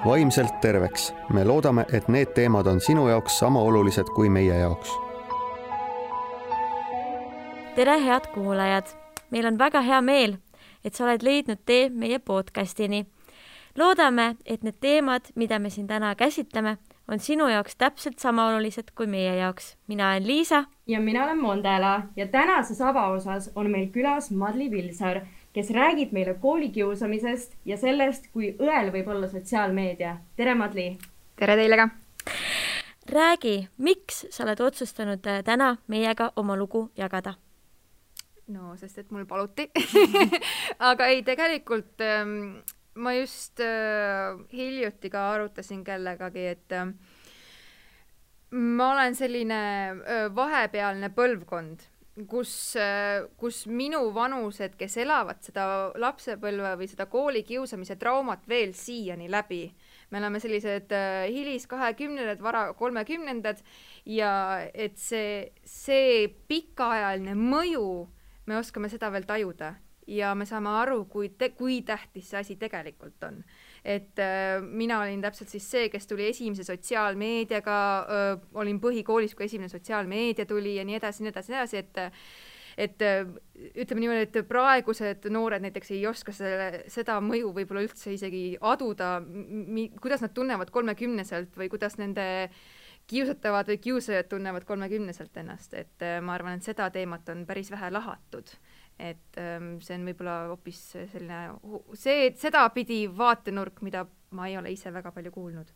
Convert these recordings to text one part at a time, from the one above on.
vaimselt terveks. Me loodame, et need teemad on sinu jaoks sama olulised kui meie jaoks. Tere, head kuulajad! Meil on väga hea meel, et sa oled leidnud tee meie podcastini. Loodame, et need teemad, mida me siin täna käsitleme, on sinu jaoks täpselt sama olulised kui meie jaoks. Mina olen Liisa. Ja mina olen Mondela ja tänases avaosas on meil külas Madli Vilsaar, kes räägib meile koolikiusamisest ja sellest, kui õel võib olla sotsiaalmeedia. Tere, Madli! Tere teile ka! Räägi, miks sa oled otsustanud täna meiega oma lugu jagada? No, sest et mul paluti. Aga ei, tegelikult ma just hiljuti ka arutasin kellegagi, et ma olen selline vahepealne põlvkond, kus minu vanused, kes elavad seda lapsepõlve või seda koolikiusamise traumat veel siiani läbi. Me oleme sellised hilis 20-ndad, vara 30-ndad ja et see pikaajaline mõju me oskame seda veel tajuda ja me saame aru, kui tähtis see asi tegelikult on. Et mina olin täpselt siis see, kes tuli esimese sotsiaalmeediaga, olin põhikoolis, kui esimene sotsiaalmeedia tuli ja nii edasi, et ütleme niimoodi, et praegused noored näiteks ei oska seda mõju võib-olla üldse isegi aduda, kuidas nad tunnevad 30-selt või kuidas nende kiusatavad või kiusajad tunnevad 30-selt ennast, et ma arvan, et seda teemat on päris vähe lahatud, et see on võib-olla hoopis selline, seda pidi vaatenurk, mida ma ei ole ise väga palju kuulnud.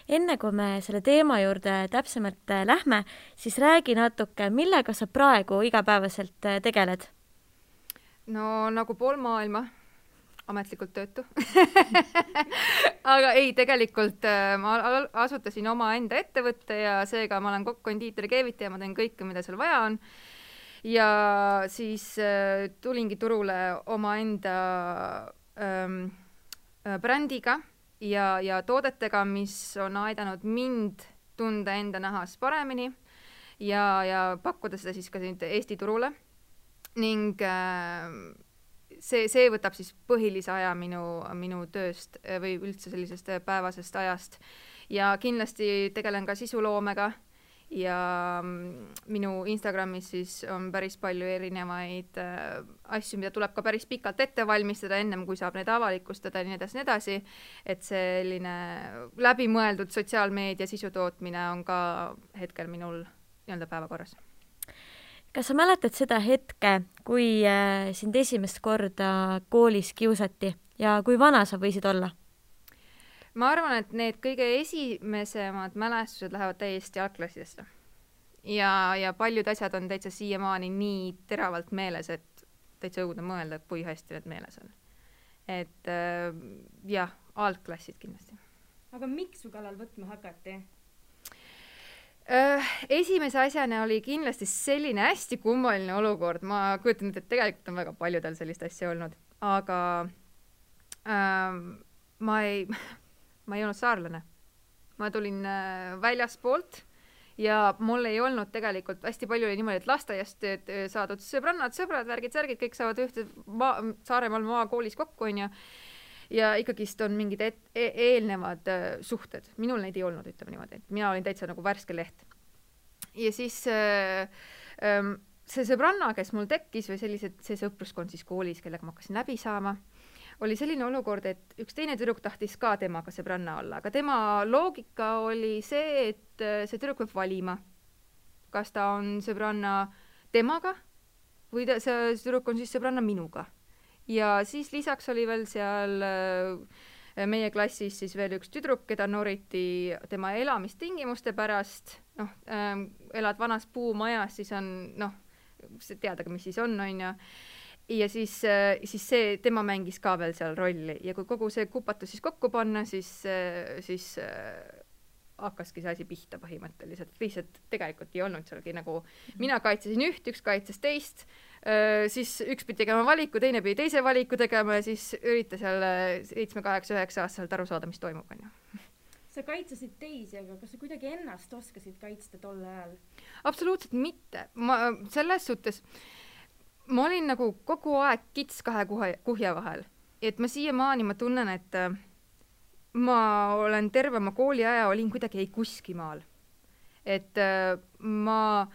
Enne kui me selle teema juurde täpsemalt lähme, siis räägi natuke, millega sa praegu igapäevaselt tegeled? No nagu pool maailma. Ametlikult töötu. Aga ei, tegelikult ma asutasin oma enda ettevõtte ja seega ma olen kondiitri keevitaja, ma teen kõike, mida seal vaja on. Ja siis tulingi turule oma enda brändiga ja toodetega, mis on aidanud mind tunda enda nahas paremini ja pakkuda seda siis ka Eesti turule. Ning see võtab siis põhilise aja minu tööst või üldse sellisest päevasest ajast. Ja kindlasti tegelen ka sisuloomega ja minu Instagramis siis on päris palju erinevaid asju, mida tuleb ka päris pikalt ette valmistada ennem, kui saab neid avalikustada ja nii edasi, et selline läbimõeldud sotsiaalmeedia sisutootmine on ka hetkel minul nii-öelda päevakorras. Kas sa mäletad seda hetke, kui sind esimest korda koolis kiusati ja kui vana sa võisid olla? Ma arvan, et need kõige esimesemad mälestused lähevad täiesti algklassidesse. Ja paljud asjad on täitsa siiamaani nii teravalt meeles, et täitsa õudne mõelda, kui hästi need meeles on. Et jah, algklassid kindlasti. Aga miks su kallal võtma hakati? Esimese asjana oli kindlasti selline hästi kummaline olukord. Ma kujutan, et tegelikult on väga paljudel sellist asja olnud. Aga ma ei olnud saarlane. Ma tulin väljaspoolt ja mul ei olnud tegelikult hästi palju oli niimoodi, et lasteaiast saadud sõbrannad, sõbrad, värgid, särgid, kõik saavad ühte Saaremaal maakoolis kokku on ja ikkagist on mingid eelnevad suhted. Minul neid ei olnud, ütleme niimoodi. Mina olin täitsa nagu värske leht. Ja siis see sõbranna, kes mul tekkis või see sõpruskond siis koolis, kellega ma hakkasin läbi saama, oli selline olukord, et üks teine tüdruk tahtis ka temaga sõbranna olla. Aga tema loogika oli see, et see tüdruk võib valima. Kas ta on sõbranna temaga või see tüdruk on siis sõbranna minuga. Ja siis lisaks oli veel seal meie klassis siis veel üks tüdruk, keda noriti tema elamistingimuste pärast. Elad vanas puumajas, siis on, teadagi, mis siis on ja. Ja siis tema mängis ka veel seal rolli. Ja kui kogu see kupatus siis kokku panna, siis hakkaski see asi pihta põhimõtteliselt. Lihtsalt tegelikult ei olnud sealgi nagu, mina kaitsesin üht, üks kaitses teist, siis üks pidi tegema valiku, teine pidi teise valiku tegema ja siis ürita seal 7, 8, 9 aastaselt aru saada, mis toimub. Sa kaitsesid teisi, aga kas sa kuidagi ennast oskasid kaitsta tol ajal? Absoluutselt mitte. Selles suhtes ma olin nagu kogu aeg kits kahe kuhja vahel. Et ma siiamaani ma tunnen, et ma olen terve oma kooliaja olin kuidagi ei kuskimaal. Et ma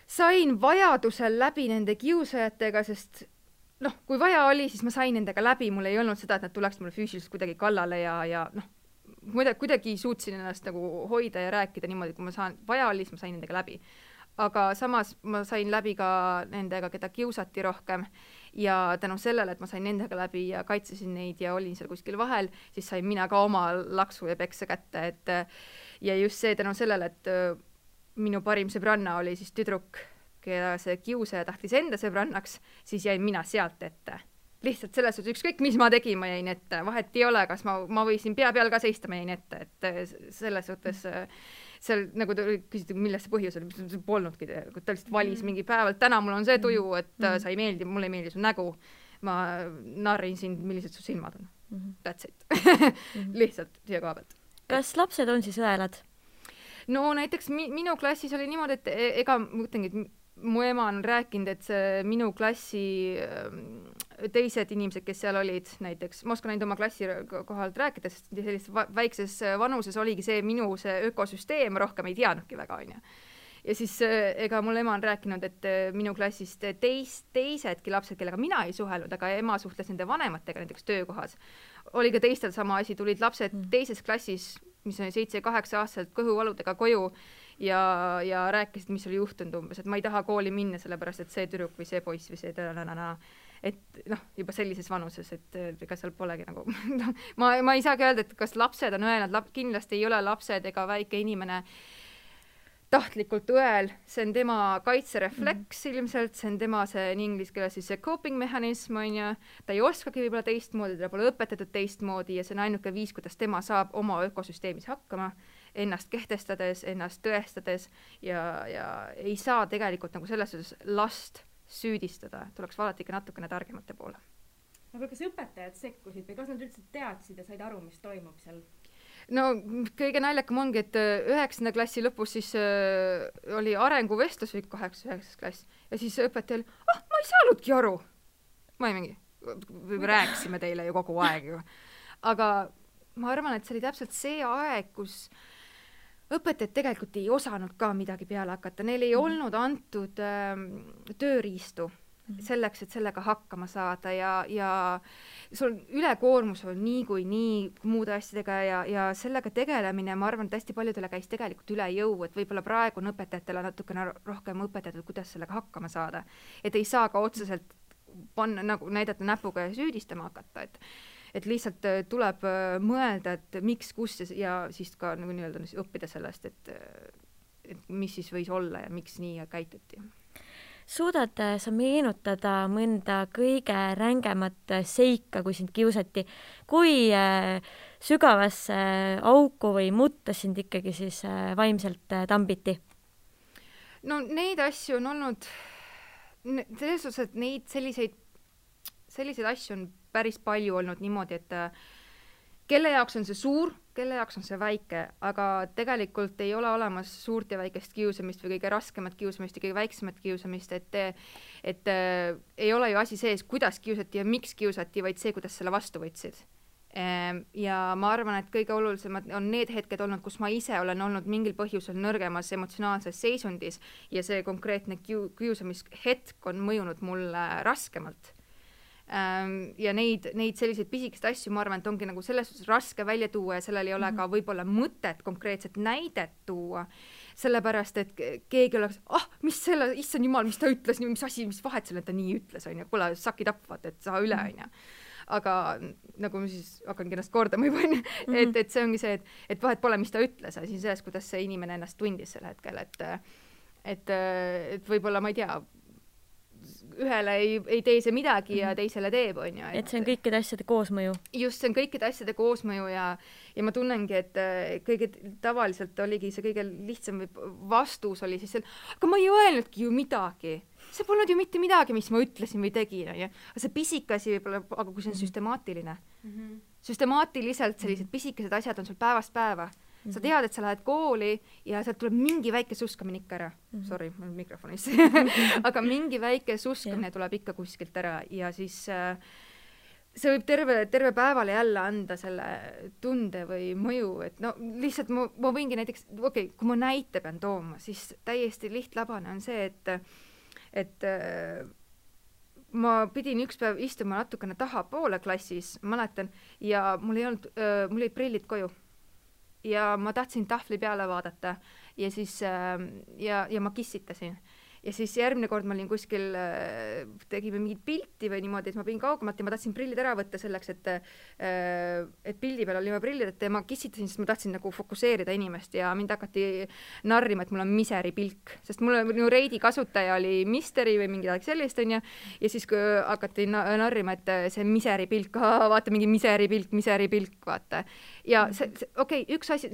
sain vajadusel läbi nende kiusajatega, sest kui vaja oli, siis ma sain nendega läbi, mul ei olnud seda, et nad tuleks mulle füüsiliselt kuidagi kallale ja kuidagi suutsin ennast nagu hoida ja rääkida niimoodi, kui vaja oli, siis ma sain nendega läbi. Aga samas ma sain läbi ka nendega, keda kiusati rohkem ja tänu sellele, et ma sain nendega läbi ja kaitsesin neid ja olin seal kuskil vahel, siis sain mina ka oma laksu ja peksa kätte, ja just see tänu sellele, et minu parim sõbranna oli siis tüdruk, keda see kiusaja tahtis enda sõbrannaks, siis jäin mina sealt ette. Lihtsalt selles suhtes, ükskõik mis ma tegin, ma jäin ette, vahet ei ole, kas ma võisin pea peal ka seista, ma jäin ette, et selles suhtes seal nagu küsiti, milles see põhjus oli, see polnudki, ta lihtsalt valis mingi päevalt, täna mul on see tuju, et sa ei meeldi, mulle ei meeldi su nägu, ma narrin sind, millised su silmad on. That's it. Lihtsalt siia koha pealt. Kas lapsed on siis õelad? No näiteks minu klassis oli niimoodi, et ega ma mõtlengi, et mu ema on rääkinud, et see minu klassi teised inimesed, kes seal olid, näiteks, ma oskan ainult oma klassi kohalt rääkida, sest sellises väikses vanuses oligi see minu see ökosüsteem, rohkem ei teadnudki väga, on ju. Ja siis ega mul ema on rääkinud, et minu klassist teisedki lapsed, kellega mina ei suhelnud, aga ema suhtles nende vanematega näiteks töökohas. Oli ka teistel sama asi, tulid lapsed teises klassis, mis on 7-8 aastaselt kõhuvaludega koju ja rääkisid, mis oli juhtunud umbes, et ma ei taha kooli minna, sellepärast et see tüdruk või see poiss või see et juba sellises vanuses, et ega seal polegi nagu ma ei saagi öelda, et kas lapsed on õelad, kindlasti ei ole lapsed ega väike inimene tahtlikult õel, see on tema kaitserefleks ilmselt, see on tema see inglise keeles siis see coping mehanism, on ju, ta ei oskagi võib-olla teistmoodi, ta pole õpetatud teistmoodi ja see on ainuke viis, kuidas tema saab oma ökosüsteemis hakkama, ennast kehtestades, ennast tõestades ja ei saa tegelikult nagu selles suhtes last süüdistada, tuleks vaadata ikka natukene targemate poole. Aga kas õpetajad sekkusid või kas nad üldse teadsid ja said aru, mis toimub seal? No kõige naljakam ongi, et 9. klassi lõpus siis oli arenguvestlus või 8. klass ja siis õpetaja oli, ma ei saanudki aru. Ma ei mingi, rääkisime teile ju kogu aeg ju. Aga ma arvan, et see oli täpselt see aeg, kus õpetajad tegelikult ei osanud ka midagi peale hakata, neil ei olnud antud tööriistu selleks, et sellega hakkama saada ja sul ülekoormus on nii muude asjadega ja sellega tegelemine, ma arvan, et hästi paljudele käis tegelikult üle jõu, et võib-olla praegu on õpetajatele natukene rohkem õpetatud, kuidas sellega hakkama saada. Et ei saa ka otseselt panna, nagu näidata näpuga ja süüdistama hakata, et lihtsalt tuleb mõelda, et miks, kus ja siis ka nagu nii-öelda õppida sellest, et mis siis võis olla ja miks nii käituti. Suudad sa meenutada mõnda kõige rängemat seika, kui sind kiusati? Kui sügavasse auku või mutta sind ikkagi siis vaimselt tambiti? No neid asju on olnud, selles suhtes, et neid selliseid asju on päris palju olnud niimoodi, et kelle jaoks on see suur, kelle jaoks on see väike, aga tegelikult ei ole olemas suurt ja väikest kiusamist või kõige raskemat kiusamist ja kõige väiksemat kiusamist, et ei ole ju asi sees, kuidas kiusati ja miks kiusati, vaid see, kuidas selle vastu võtsid. Ja ma arvan, et kõige olulisemad on need hetked olnud, kus ma ise olen olnud mingil põhjusel nõrgemas emotsionaalses seisundis ja see konkreetne kiusamishetk on mõjunud mulle raskemalt. Ja neid selliseid pisikest asju, ma arvan, et ongi nagu selles suhtes raske välja tuua ja sellel ei ole ka võib-olla mõtet konkreetset näidet tuua, sellepärast, et keegi oleks, mis selle, issand jumal, mis ta ütles, mis asi, mis vahet selle, et ta nii ütles, on ju, kuule, sakid tapvad, et saa üle, on ju. Aga nagu ma siis hakkangi ennast kordama juba, et see ongi see, et vahet pole, mis ta ütles, asi selles, kuidas see inimene ennast tundis sel hetkel, et võib-olla, ma ei tea, ühele ei tee see midagi ja teisele teeb, on ju. Et see on kõikide asjade koosmõju. Just, see on kõikide asjade koosmõju ja ma tunnengi, et kõige tavaliselt oligi see kõige lihtsam vastus oli siis aga ma ei öelnudki ju midagi. See polnud ju mitte midagi, mis ma ütlesin või tegin, on ju. Aga see pisikasi võib-olla, aga kui see on süstemaatiline. Süstemaatiliselt sellised pisikesed asjad on sul päevast päeva. Sa tead, et sa lähed kooli ja sealt tuleb mingi väike suskamine ikka ära. Sorry, mul mikrofonis. Aga mingi väike suskamine tuleb ikka kuskilt ära ja siis see võib terve päevale jälle anda selle tunde või mõju, et no lihtsalt ma võingi näiteks, kui ma näite pean tooma, siis täiesti lihtlabane on see, et ma pidin üks päev istuma natukene tahapoole klassis, mäletan, ja mul olid prillid koju. Ja ma tahtsin tahvli peale vaadata ja siis ja ma kissitasin. Ja siis järgmine kord ma olin kuskil, tegime mingit pilti või niimoodi, et ma pidin kaugemalt ja ma tahtsin prillid ära võtta selleks, et pildi peal oli ma prillid, et ma kissitasin, sest ma tahtsin nagu fokuseerida inimest ja mind hakati narrima, et mul on miseri pilk, sest minu Reidi kasutaja oli Misteri või mingi sellist, on ja siis kui hakati narrima, et see miseri pilk, vaata mingi miseri pilk, vaata. Ja üks asi,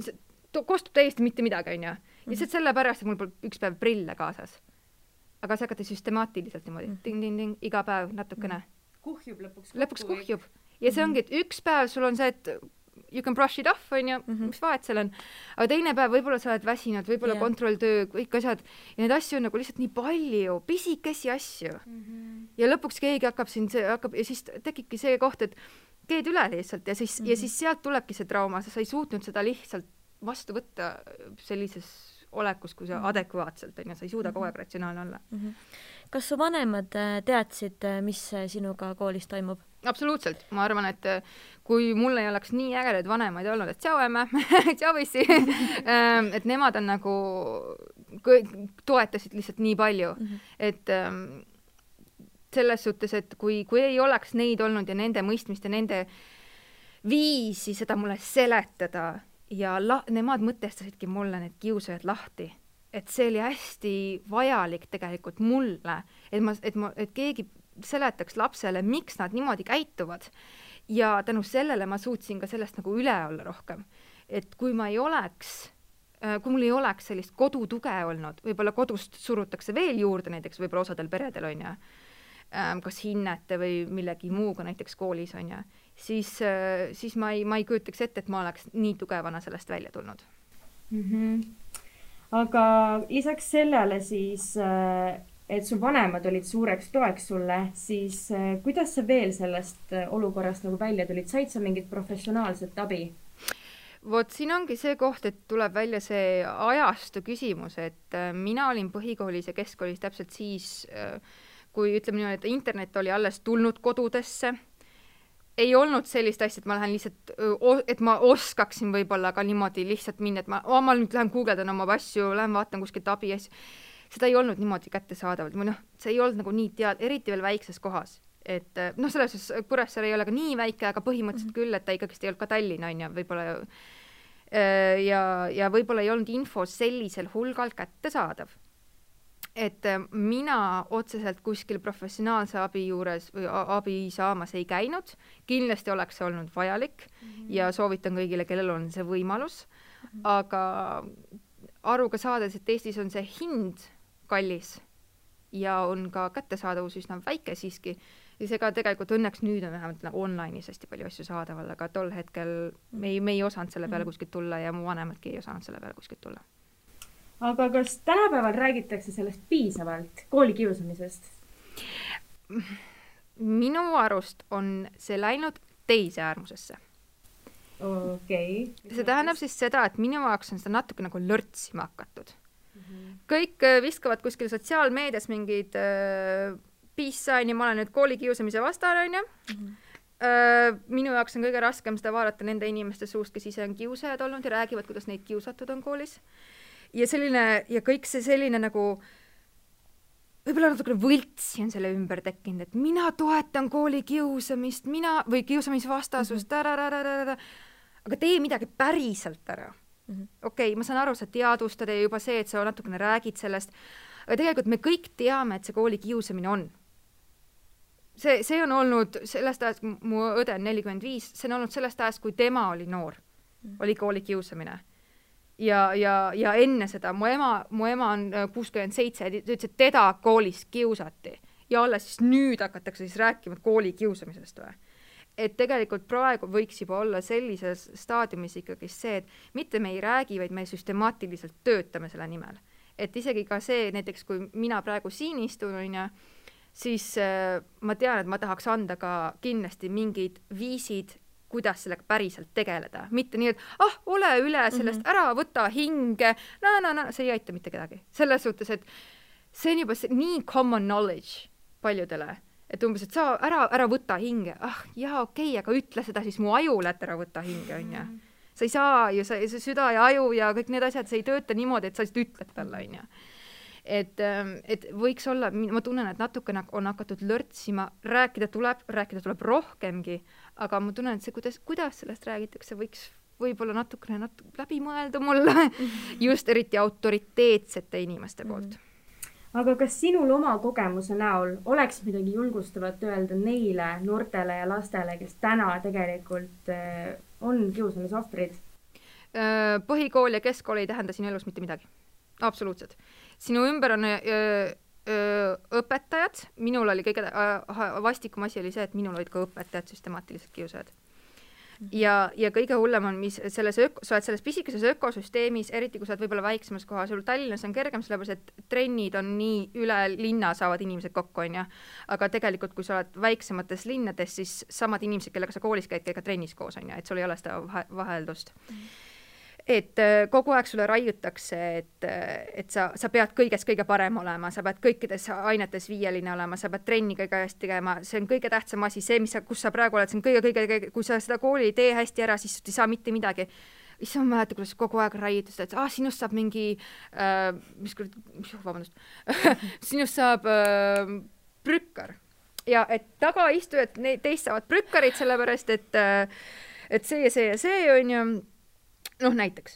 kostub täiesti mitte midagi, on ja lihtsalt sellepärast, et mul pole üks päev prille kaasas. Aga see hakati süstemaatiliselt niimoodi, ting-ting-ting, iga päev natukene. Kuhjub lõpuks. Lõpuks kuhjub. Ja see ongi, et üks päev sul on see, et you can brush it off, on ju, mis vahet seal on. Aga teine päev võib-olla sa oled väsinud, võib-olla kontrolltöö, kõik asjad. Ja need asju on nagu lihtsalt nii palju, pisikesi asju. Ja lõpuks keegi hakkab ja siis tekibki see koht, et keed üle lihtsalt ja siis sealt tulebki see trauma, sa ei suutnud seda lihtsalt vastu võtta sellises olekus, kui sa adekvaatselt on ja sa ei suuda kogu aeg ratsionaalne olla. Kas su vanemad teadsid, mis sinuga koolis toimub? Absoluutselt. Ma arvan, et kui mul ei oleks nii ägedaid vanemaid olnud, et tšau emme, tšau issi, et nemad on nagu toetasid lihtsalt nii palju, et selles suhtes, et kui ei oleks neid olnud ja nende mõistmist ja nende viisi seda mulle seletada ja nemad mõtestasidki mulle need kiusajad lahti, et see oli hästi vajalik tegelikult mulle, et keegi seletaks lapsele, miks nad niimoodi käituvad ja tänu sellele ma suutsin ka sellest nagu üle olla rohkem. Et kui mul ei oleks sellist kodutuge olnud, võib-olla kodust surutakse veel juurde, näiteks võib-olla osadel peredel on ja kas hinnete või millegi muuga näiteks koolis on ja siis ma ei kujutaks ette, et ma oleks nii tugevana sellest välja tulnud. Aga lisaks sellele siis, et su vanemad olid suureks toeks sulle, siis kuidas sa veel sellest olukorrast nagu välja tulid? Said sa mingit professionaalset abi? Vot siin ongi see koht, et tuleb välja see ajastu küsimus, et mina olin põhikoolis ja keskkoolis täpselt siis, kui ütleme niimoodi, et internet oli alles tulnud kodudesse, ei olnud sellist asja, et ma lähen lihtsalt, et ma oskaksin võib-olla ka niimoodi lihtsalt minna, et ma nüüd lähen guugeldan oma asju, lähen vaatan kuskilt abi asju. Seda ei olnud niimoodi kättesaadavalt. See ei olnud nagu nii eriti veel väikses kohas. Et selles Kuressaare ei ole ka nii väike, aga põhimõtteliselt küll, et ta ikkagi ei olnud ka Tallinna on ja võib-olla ja võib-olla ei olnud info sellisel hulgal kättesaadav. Et mina otseselt kuskil professionaalse abi juures või abi saamas ei käinud. Kindlasti oleks see olnud vajalik ja soovitan kõigile, kellel on see võimalus. Aga aruga saades, et Eestis on see hind kallis ja on ka kättesaadavus üsna väike siiski. Ja seega tegelikult õnneks nüüd on vähemalt online'is hästi palju asju saadaval, aga tol hetkel me ei osanud selle peale kuskilt tulla ja mu vanemadki ei osanud selle peale kuskilt tulla. Aga kas tänapäeval räägitakse sellest piisavalt koolikiusamisest? Minu arust on see läinud teise äärmusesse. Okay. See tähendab siis seda, et minu jaoks on seda natuke nagu lörtsima hakatud. Kõik viskavad kuskil sotsiaalmeedias mingid peace sign ja ma olen nüüd koolikiusamise vastane on ja. Minu jaoks on kõige raskem seda vaadata nende inimeste suust, kes ise on kiusajad olnud ja räägivad, kuidas neid kiusatud on koolis. Ja kõik see selline nagu võib-olla natukene võltsi on selle ümber tekkinud, et mina toetan kooli kiusamist, või kiusamisvastasust, aga tee midagi päriselt ära. Okei, ma saan aru, sa teadvustad ja juba see, et sa natukene räägid sellest, aga tegelikult me kõik teame, et see kooli kiusamine on. See on olnud sellest ajast, mu õde on 45, see on olnud sellest ajast, kui tema oli noor, oli kooli kiusamine. Ja enne seda, mu ema on 67, ta ütles, et teda koolis kiusati ja alles siis nüüd hakatakse siis rääkima kooli kiusamisest või. Et tegelikult praegu võiks juba olla sellises staadiumis ikkagi see, et mitte me ei räägi, vaid me süstemaatiliselt töötame selle nimel. Et isegi ka see, näiteks kui mina praegu siin istun, siis ma tean, et ma tahaks anda ka kindlasti mingid viisid, kuidas sellega päriselt tegeleda. Mitte nii, et ole üle sellest, ära võta hinge, see ei aita mitte kedagi. Selles suhtes, et see on juba nii common knowledge paljudele, et umbes, et sa ära võta hinge. Jaa, okei, aga ütle seda siis mu ajule, et ära võta hinge, on ju. Sa ei saa ju, see süda ja aju ja kõik need asjad, see ei tööta niimoodi, et sa lihtsalt ütled talle, on ju. Et võiks olla, ma tunnen, et natukene on hakatud lörtsima, rääkida tuleb rohkemgi, aga ma tunnen, et see, kuidas sellest räägitakse, võiks võib-olla natukene läbi mõelda mulle, just eriti autoriteetsete inimeste poolt. Aga kas sinul oma kogemuse näol oleks midagi julgustavat öelda neile noortele ja lastele, kes täna tegelikult on kiusamise ohvrid? Põhikool ja keskkool ei tähenda sinu elus mitte midagi. Absoluutselt. Sinu ümber on õpetajad, minul oli kõige vastikum asi oli see, et minul olid ka õpetajad süstemaatiliselt kiusajad. Ja kõige hullem on, mis sa oled selles pisikeses ökosüsteemis, eriti kui sa oled võib-olla väiksemas kohas, sul Tallinnas on kergem, sellepärast et trennid on nii üle linna saavad inimesed kokku, on ja. Aga tegelikult, kui sa oled väiksemates linnades, siis samad inimesed, kellega sa koolis käid, ka trennis koos, on ja, et sul ei ole seda vaheldust. Et kogu aeg sulle raiutakse, et sa pead kõiges kõige parem olema, sa pead kõikides ainetes viieline olema, sa pead trenni kõige hästi tegema, see on kõige tähtsam asi, see, kus sa praegu oled, see on kõige, kui sa seda kooli ei tee hästi ära, siis ei saa mitte midagi. Issa ma mäletan, kuidas kogu aeg raiutus, et sinust saab mingi, sinust saab prükkar. Ja et taga istujad, teist saavad prükkarid, sellepärast, et see on ju, näiteks,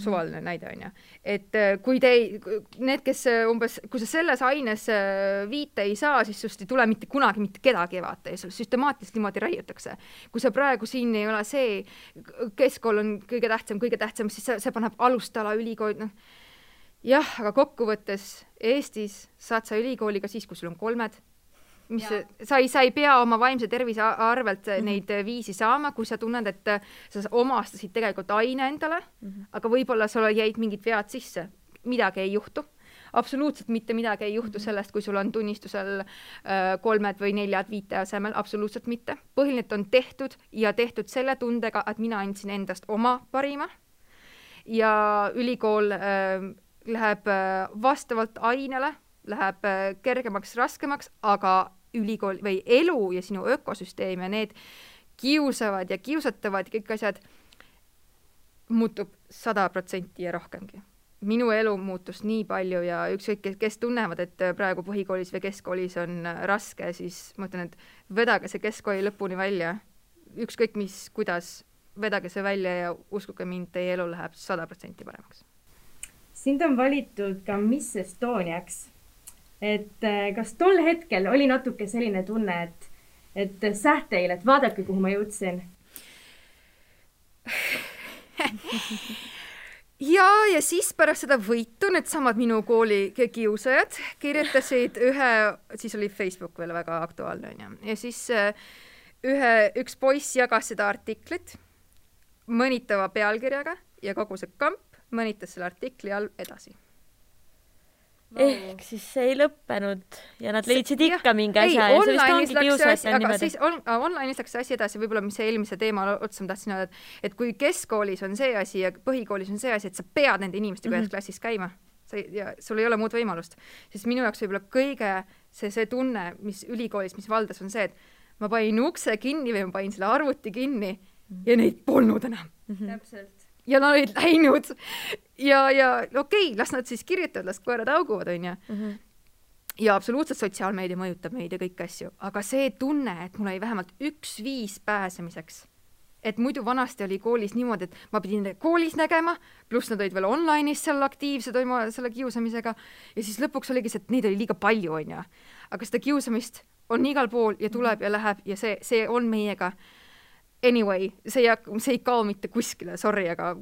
suvaline näide on ja. Et kui need, kes umbes, kui sa selles aines viite ei saa, siis sust ei tule mitte kunagi mitte kedagi vaata ja süstemaatiliselt niimoodi raiutakse. Kui sa praegu siin ei ole see, keskkool on kõige tähtsam, siis see paneb alustala ülikool. Jah, aga kokkuvõttes Eestis saad sa ülikooliga siis, kui sul on 3. Sa ei pea oma vaimse tervise arvelt neid viisi saama, kui sa tunned, et sa omastasid tegelikult aine endale, aga võib-olla sul jäid mingid vead sisse. Midagi ei juhtu. Absoluutselt mitte midagi ei juhtu sellest, kui sul on tunnistusel 3 või 4, 5 asemel. Absoluutselt mitte. Põhiline on tehtud ja tehtud selle tundega, et mina andsin endast oma parima. Ja ülikool läheb vastavalt ainele, läheb kergemaks, raskemaks, aga ülikool või elu ja sinu ökosüsteem ja need kiusavad ja kiusatavad ja kõik asjad muutub 100% ja rohkemgi. Minu elu muutus nii palju ja ükskõik, kes tunnevad, et praegu põhikoolis või keskkoolis on raske, siis ma ütlen, et vedage see keskkooli lõpuni välja. Ükskõik kuidas, vedage see välja ja uskuge mind, teie elu läheb 100% paremaks. Sind on valitud ka Miss Estoniaks. Et kas tol hetkel oli natuke selline tunne, et sähteil, et vaadake, kuhu ma jõudsin? Ja siis pärast seda võitu need samad minu kooli kiusajad kirjutasid siis oli Facebook veel väga aktuaalne, ja siis üks poiss jagas seda artiklit mõnitava pealkirjaga ja kogu see kamp mõnitas selle artikli all edasi. Ehk siis see ei lõppenud ja nad leidsid ikka mingi asja ja see vist ongi kiusajate niimoodi. Online'is läks see asi edasi, võib-olla mis see eelmise teema otsa ma tahtsin öelda, et kui keskkoolis on see asi ja põhikoolis on see asi, et sa pead nende inimestega ühes klassis käima ja sul ei ole muud võimalust, siis minu jaoks võib-olla kõige see tunne, mis ülikoolis, mis valdas on see, et ma panin ukse kinni või ma panin selle arvuti kinni ja neid polnud enam. Täpselt. Ja nad olid läinud ja okei, las nad siis kirjutavad, las koerad auguvad, on ja. Ja absoluutselt sotsiaalmeedia mõjutab meid ja kõik asju, aga see tunne, et mul oli vähemalt 1 viis pääsemiseks, et muidu vanasti oli koolis niimoodi, et ma pidin koolis nägema, pluss nad olid veel online'is seal aktiivsed selle kiusamisega ja siis lõpuks oligi see, et neid oli liiga palju, on ja. Aga seda kiusamist on igal pool ja tuleb ja läheb ja see on meiega. Anyway, see ei kao mitte kuskile, sorry, aga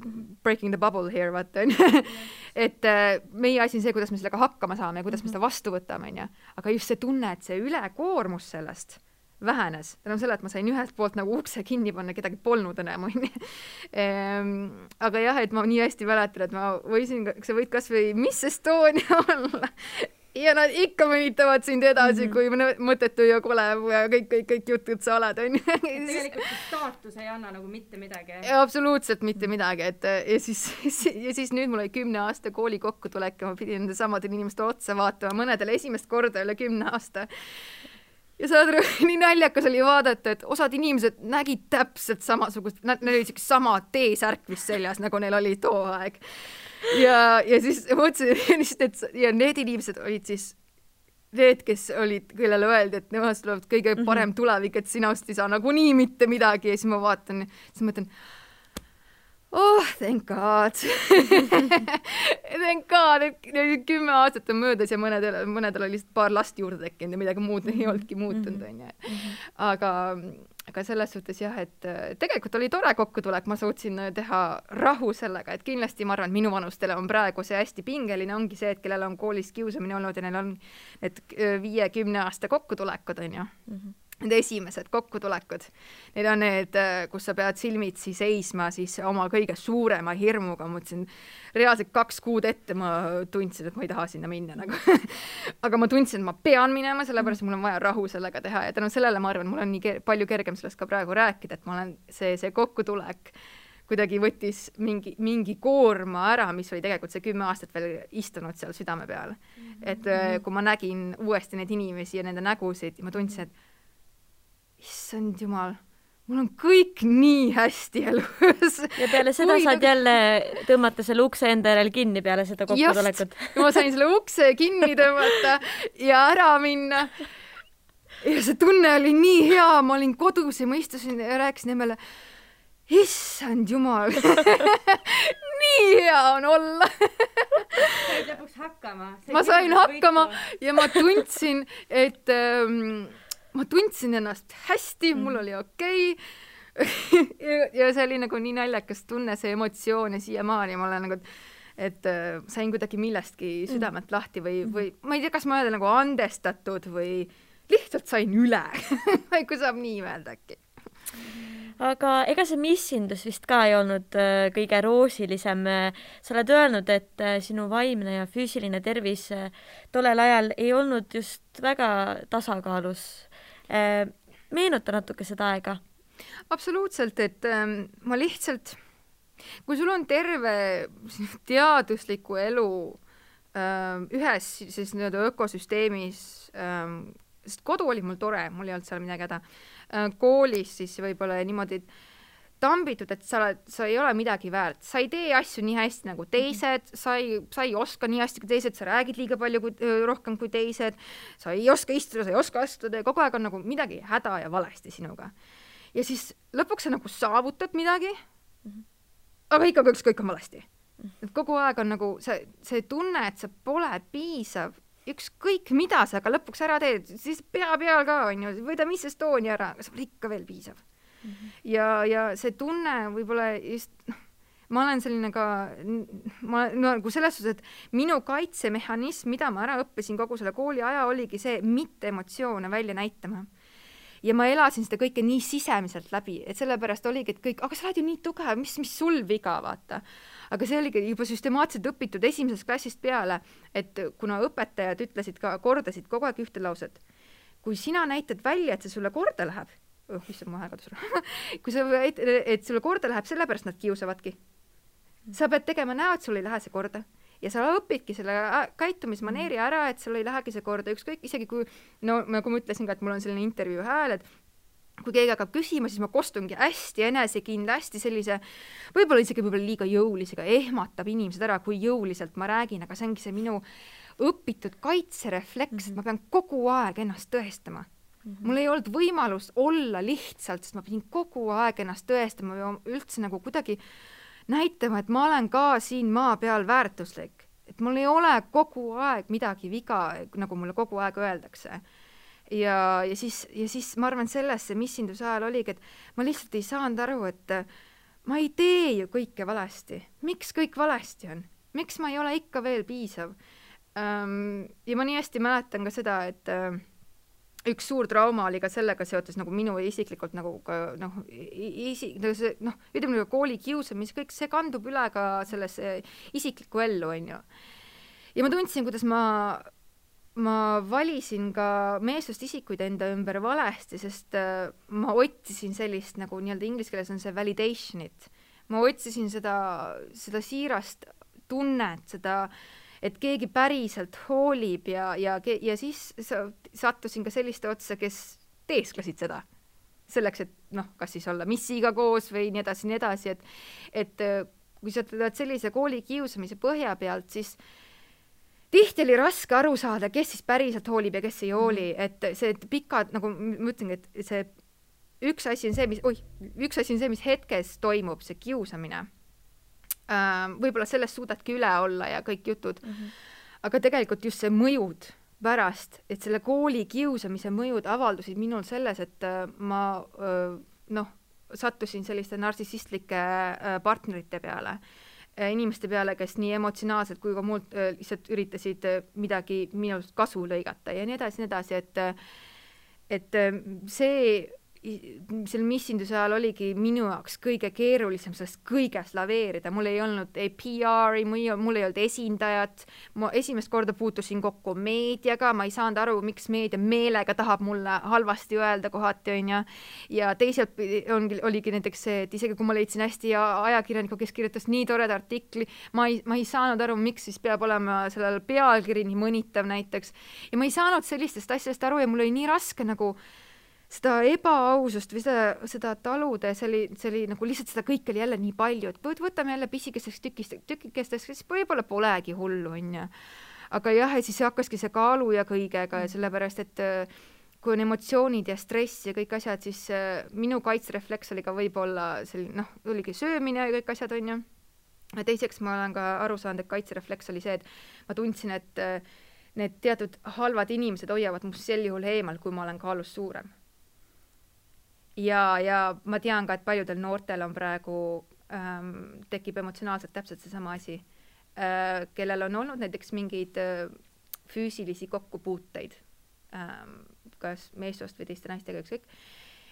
breaking the bubble here, vaata. Et meie asi on see, kuidas me sellega hakkama saame ja kuidas me seda vastu võtame, on ja. Aga just see tunne, et see ülekoormus sellest vähenes. Tänu selle, et ma sain ühelt poolt nagu ukse kinni panna, kedagi polnud enam, on ja. Aga jah, et ma nii hästi mäletan, et ma võisin, sa võid kas või Miss Estonia olla. ja nad ikka mõnitavad sind edasi, kui mõttetu ja kole ja kõik jutud sa oled, on ju. Tegelikult staatus ei anna nagu mitte midagi. Absoluutselt mitte midagi, et ja siis nüüd mul oli 10 aasta kooli kokkutulek ja ma pidin nende samadele inimeste otsa vaatama, mõnedele esimest korda üle 10 aasta. Ja saad aru, nii naljakas oli vaadata, et osad inimesed nägid täpselt samasugust, nad olid sama T-särk vist seljas, nagu neil oli too aeg. Ja siis mõtlesin, ja need inimesed olid siis need, kes olid, kellele öeldi, et nemad tulevad kõige parem tulevik, et sinust ei saa nagunii mitte midagi ja siis ma vaatan, siis mõtlen, thank God. Thank God, et 10 aastat on möödas ja mõnedel oli lihtsalt paar last juurde tekkinud ja midagi muud ei olnudki muutunud, on ju. Aga selles suhtes jah, et tegelikult oli tore kokkutulek, ma suutsin teha rahu sellega, et kindlasti ma arvan, et minu vanustele on praegu see hästi pingeline, ongi see, et kellel on koolis kiusamine olnud ja neil on need 5-10 aasta kokkutulekud, on ju. Need esimesed kokkutulekud. Need on need, kus sa pead silmitsi seisma siis oma kõige suurema hirmuga. Ma mõtlesin, reaalselt 2 kuud ette ma tundsin, et ma ei taha sinna minna. Nagu. Aga ma tundsin, et ma pean minema, sellepärast mul on vaja rahu sellega teha. Ja tänu sellele ma arvan, mul on nii palju kergem sellest ka praegu rääkida, et ma olen see kokkutulek kuidagi võttis mingi koorma ära, mis oli tegelikult see 10 aastat veel istunud seal südame peal. Et kui ma nägin uuesti neid inimesi ja nende nägusid, ma tundsin, et issand jumal, mul on kõik nii hästi elus. Ja peale seda saad jälle tõmmata selle ukse enda järel kinni peale seda kokkutulekut. Just, ma sain selle ukse kinni tõmmata ja ära minna. Ja see tunne oli nii hea, ma olin kodus ja ma istusin ja rääkisin emmele, issand jumal, nii hea on olla. Said lõpuks hakkama. Ma sain hakkama ja ma tundsin, et ma tundsin ennast hästi, mul oli okei. Ja see oli nagu nii naljakas tunne, see emotsioon ja siiamaani ma olen nagu, et sain kuidagi millestki südamelt lahti või ma ei tea, kas ma öelda nagu andestatud või lihtsalt sain üle. Kui saab nii öelda äkki. Aga ega see missindus vist ka ei olnud kõige roosilisem. Sa oled öelnud, et sinu vaimne ja füüsiline tervis tollel ajal ei olnud just väga tasakaalus. Meenuta natuke seda aega. Absoluutselt, et ma lihtsalt, kui sul on terve teadusliku elu ühes siis ökosüsteemis, sest kodu oli mul tore, mul ei olnud seal midagi häda, koolis siis võib-olla niimoodi tambitud, et sa ei ole midagi väärt, sa ei tee asju nii hästi nagu teised, sa ei oska nii hästi kui teised, sa räägid liiga palju rohkem kui teised, sa ei oska istuda, sa ei oska astuda ja kogu aeg on nagu midagi häda ja valesti sinuga. Ja siis lõpuks sa nagu saavutad midagi, aga ikka kõik on valesti. Et kogu aeg on nagu see tunne, et sa pole piisav, ükskõik mida sa aga lõpuks ära teed, siis pea peal ka on ju, võida mis Estonia ära, aga sa pole ikka veel piisav. Ja see tunne võib-olla just, ma olen selline ka, nagu selles suhtes, et minu kaitsemehhanism, mida ma ära õppisin kogu selle kooli aja, oligi see mitte emotsioone välja näitama. Ja ma elasin seda kõike nii sisemiselt läbi, et sellepärast oligi, et kõik, aga sa oled ju nii tugev, mis sul viga, vaata. Aga see oligi juba süstemaatselt õpitud esimesest klassist peale, et kuna õpetajad ütlesid ka, kordasid kogu aeg ühte lauset, kui sina näitad välja, et see sulle korda läheb, issand, ma kadus ära. Kui sa, et sulle korda läheb, sellepärast nad kiusavadki. Sa pead tegema näo, et sul ei lähe see korda. Ja sa õpidki selle käitumismaneeri ära, et sul ei lähegi see korda. Ükskõik, isegi kui, no nagu ma ütlesin ka, et mul on selline intervjuu hääl, et kui keegi hakkab küsima, siis ma kostungi hästi enesekindla, hästi sellise, võib-olla liiga jõulisega, ehmatab inimesed ära, kui jõuliselt ma räägin, aga see ongi see minu õpitud kaitserefleks, et ma pean kogu aeg ennast tõestama. Mul ei olnud võimalust olla lihtsalt, sest ma pidin kogu aeg ennast tõestama ja üldse nagu kuidagi näitama, et ma olen ka siin maa peal väärtuslik. Et mul ei ole kogu aeg midagi viga, nagu mulle kogu aeg öeldakse. Ja siis ma arvan sellesse missinduse ajal oligi, et ma lihtsalt ei saanud aru, et ma ei tee ju kõike valesti. Miks kõik valesti on? Miks ma ei ole ikka veel piisav? Ja ma nii hästi mäletan ka seda, et üks suur trauma oli ka sellega seotud nagu minu isiklikult nagu ütleme kooli kiusamis, kõik see kandub üle ka sellesse isiklikku ellu, on ju. Ja ma tundsin, kuidas ma ma valisin ka meessoost isikuid enda ümber valesti, sest ma otsisin sellist nagu nii-öelda inglise keeles on see validation'it. Ma otsisin seda siirast tunnet, seda, et keegi päriselt hoolib ja siis sattusin ka selliste otsa, kes teesklesid seda. Selleks, et kas siis olla missiga koos või nii edasi, et kui sa tuled sellise koolikiusamise põhja pealt, siis tihti oli raske aru saada, kes siis päriselt hoolib ja kes ei hooli, et see pikad, nagu ma ütlengi, et see üks asi on see, mis hetkes toimub, see kiusamine. Võib-olla sellest suudadki üle olla ja kõik jutud, aga tegelikult just see mõjud pärast, et selle kooli kiusamise mõjud avaldusid minul selles, et ma sattusin selliste narsissistlike partnerite peale, inimeste peale, kes nii emotsionaalselt kui ka muud lihtsalt üritasid midagi minust kasu lõigata ja nii edasi, et see selle missinduse ajal oligi minu jaoks kõige keerulisem sellest kõigest laveerida. Mul ei olnud ei PR-i, mul ei olnud esindajat, ma esimest korda puutusin kokku meediaga, ma ei saanud aru, miks meedia meelega tahab mulle halvasti öelda kohati, ja teiselt oligi näiteks see, et isegi kui ma leidsin hästi ajakirjaniku, kes kirjutas nii toreda artikli, ma ei saanud aru, miks siis peab olema sellel pealkiri nii mõnitav näiteks, ja ma ei saanud sellistest asjadest aru ja mul oli nii raske nagu seda ebaausust või seda talude, see oli nagu lihtsalt seda kõik oli jälle nii palju, et võtame jälle pisikesteks tükikesteks, siis võib-olla polegi hullu, Aga jah, ja siis hakkaski see kaalu ja kõigega ja sellepärast, et kui on emotsioonid ja stress ja kõik asjad, siis minu kaitserefleks oli ka võib-olla selline, oligi söömine ja kõik asjad, Ja teiseks ma olen ka aru saanud, et kaitserefleks oli see, et ma tundsin, et need teatud halvad inimesed hoiavad must sel juhul eemal, kui ma olen kaalus suurem. Ja ma tean ka, et paljudel noortel on praegu tekib emotsionaalselt täpselt seesama asi, kellel on olnud näiteks mingeid füüsilisi kokkupuuteid, kas meessoost või teiste naistega ükskõik,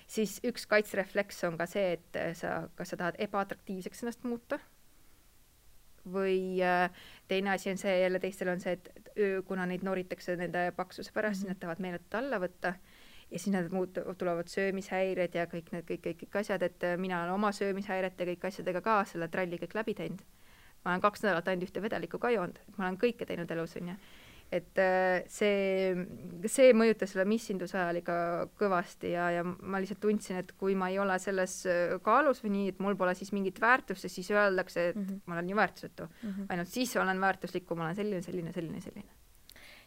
siis üks kaitserefleks on ka see, et kas sa tahad ebaatraktiivseks ennast muuta või teine asi on see, jälle teistel on see, et kuna neid noritakse nende paksuse pärast, siis nad tahavad meeletult alla võtta ja siis nad tulevad söömishäired ja kõik asjad, et mina olen oma söömishäiret ja kõik asjadega ka selle tralli kõik läbi teinud. Ma olen 2 nädalat ainult ühte vedelikku ka joonud, et ma olen kõike teinud elus, Et see mõjutas selle missinduse ajal ikka kõvasti ja ma lihtsalt tundsin, et kui ma ei ole selles kaalus või nii, et mul pole siis mingit väärtust, siis öeldakse, et ma olen nii väärtusetu. Ainult siis olen väärtuslik, kui ma olen selline.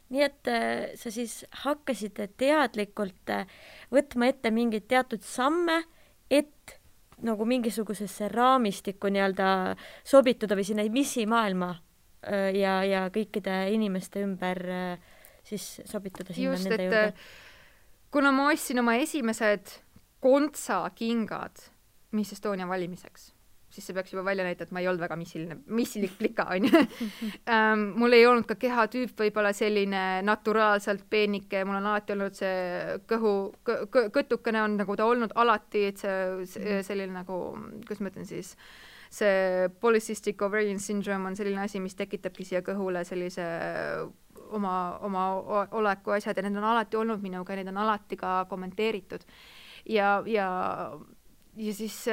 Nii et sa siis hakkasid teadlikult võtma ette mingeid teatud samme, et nagu mingisugusesse raamistikku nii-öelda sobituda või sinna missimaailma ja kõikide inimeste ümber siis sobituda sinna just, nende juurde. Kuna ma ostsin oma esimesed kontsakingad Miss Estonia valimiseks, siis see peaks juba välja näita, et ma ei olnud väga missilik plika, mul ei olnud ka kehatüüp võib-olla selline naturaalselt peenike, mul on alati olnud see kõtukene on nagu ta olnud alati, et see selline nagu, kuidas ma ütlen siis, see polycystic ovarian syndrome on selline asi, mis tekitabki siia kõhule sellise oma oleku asjad ja need on alati olnud minuga ja need on alati ka kommenteeritud ja siis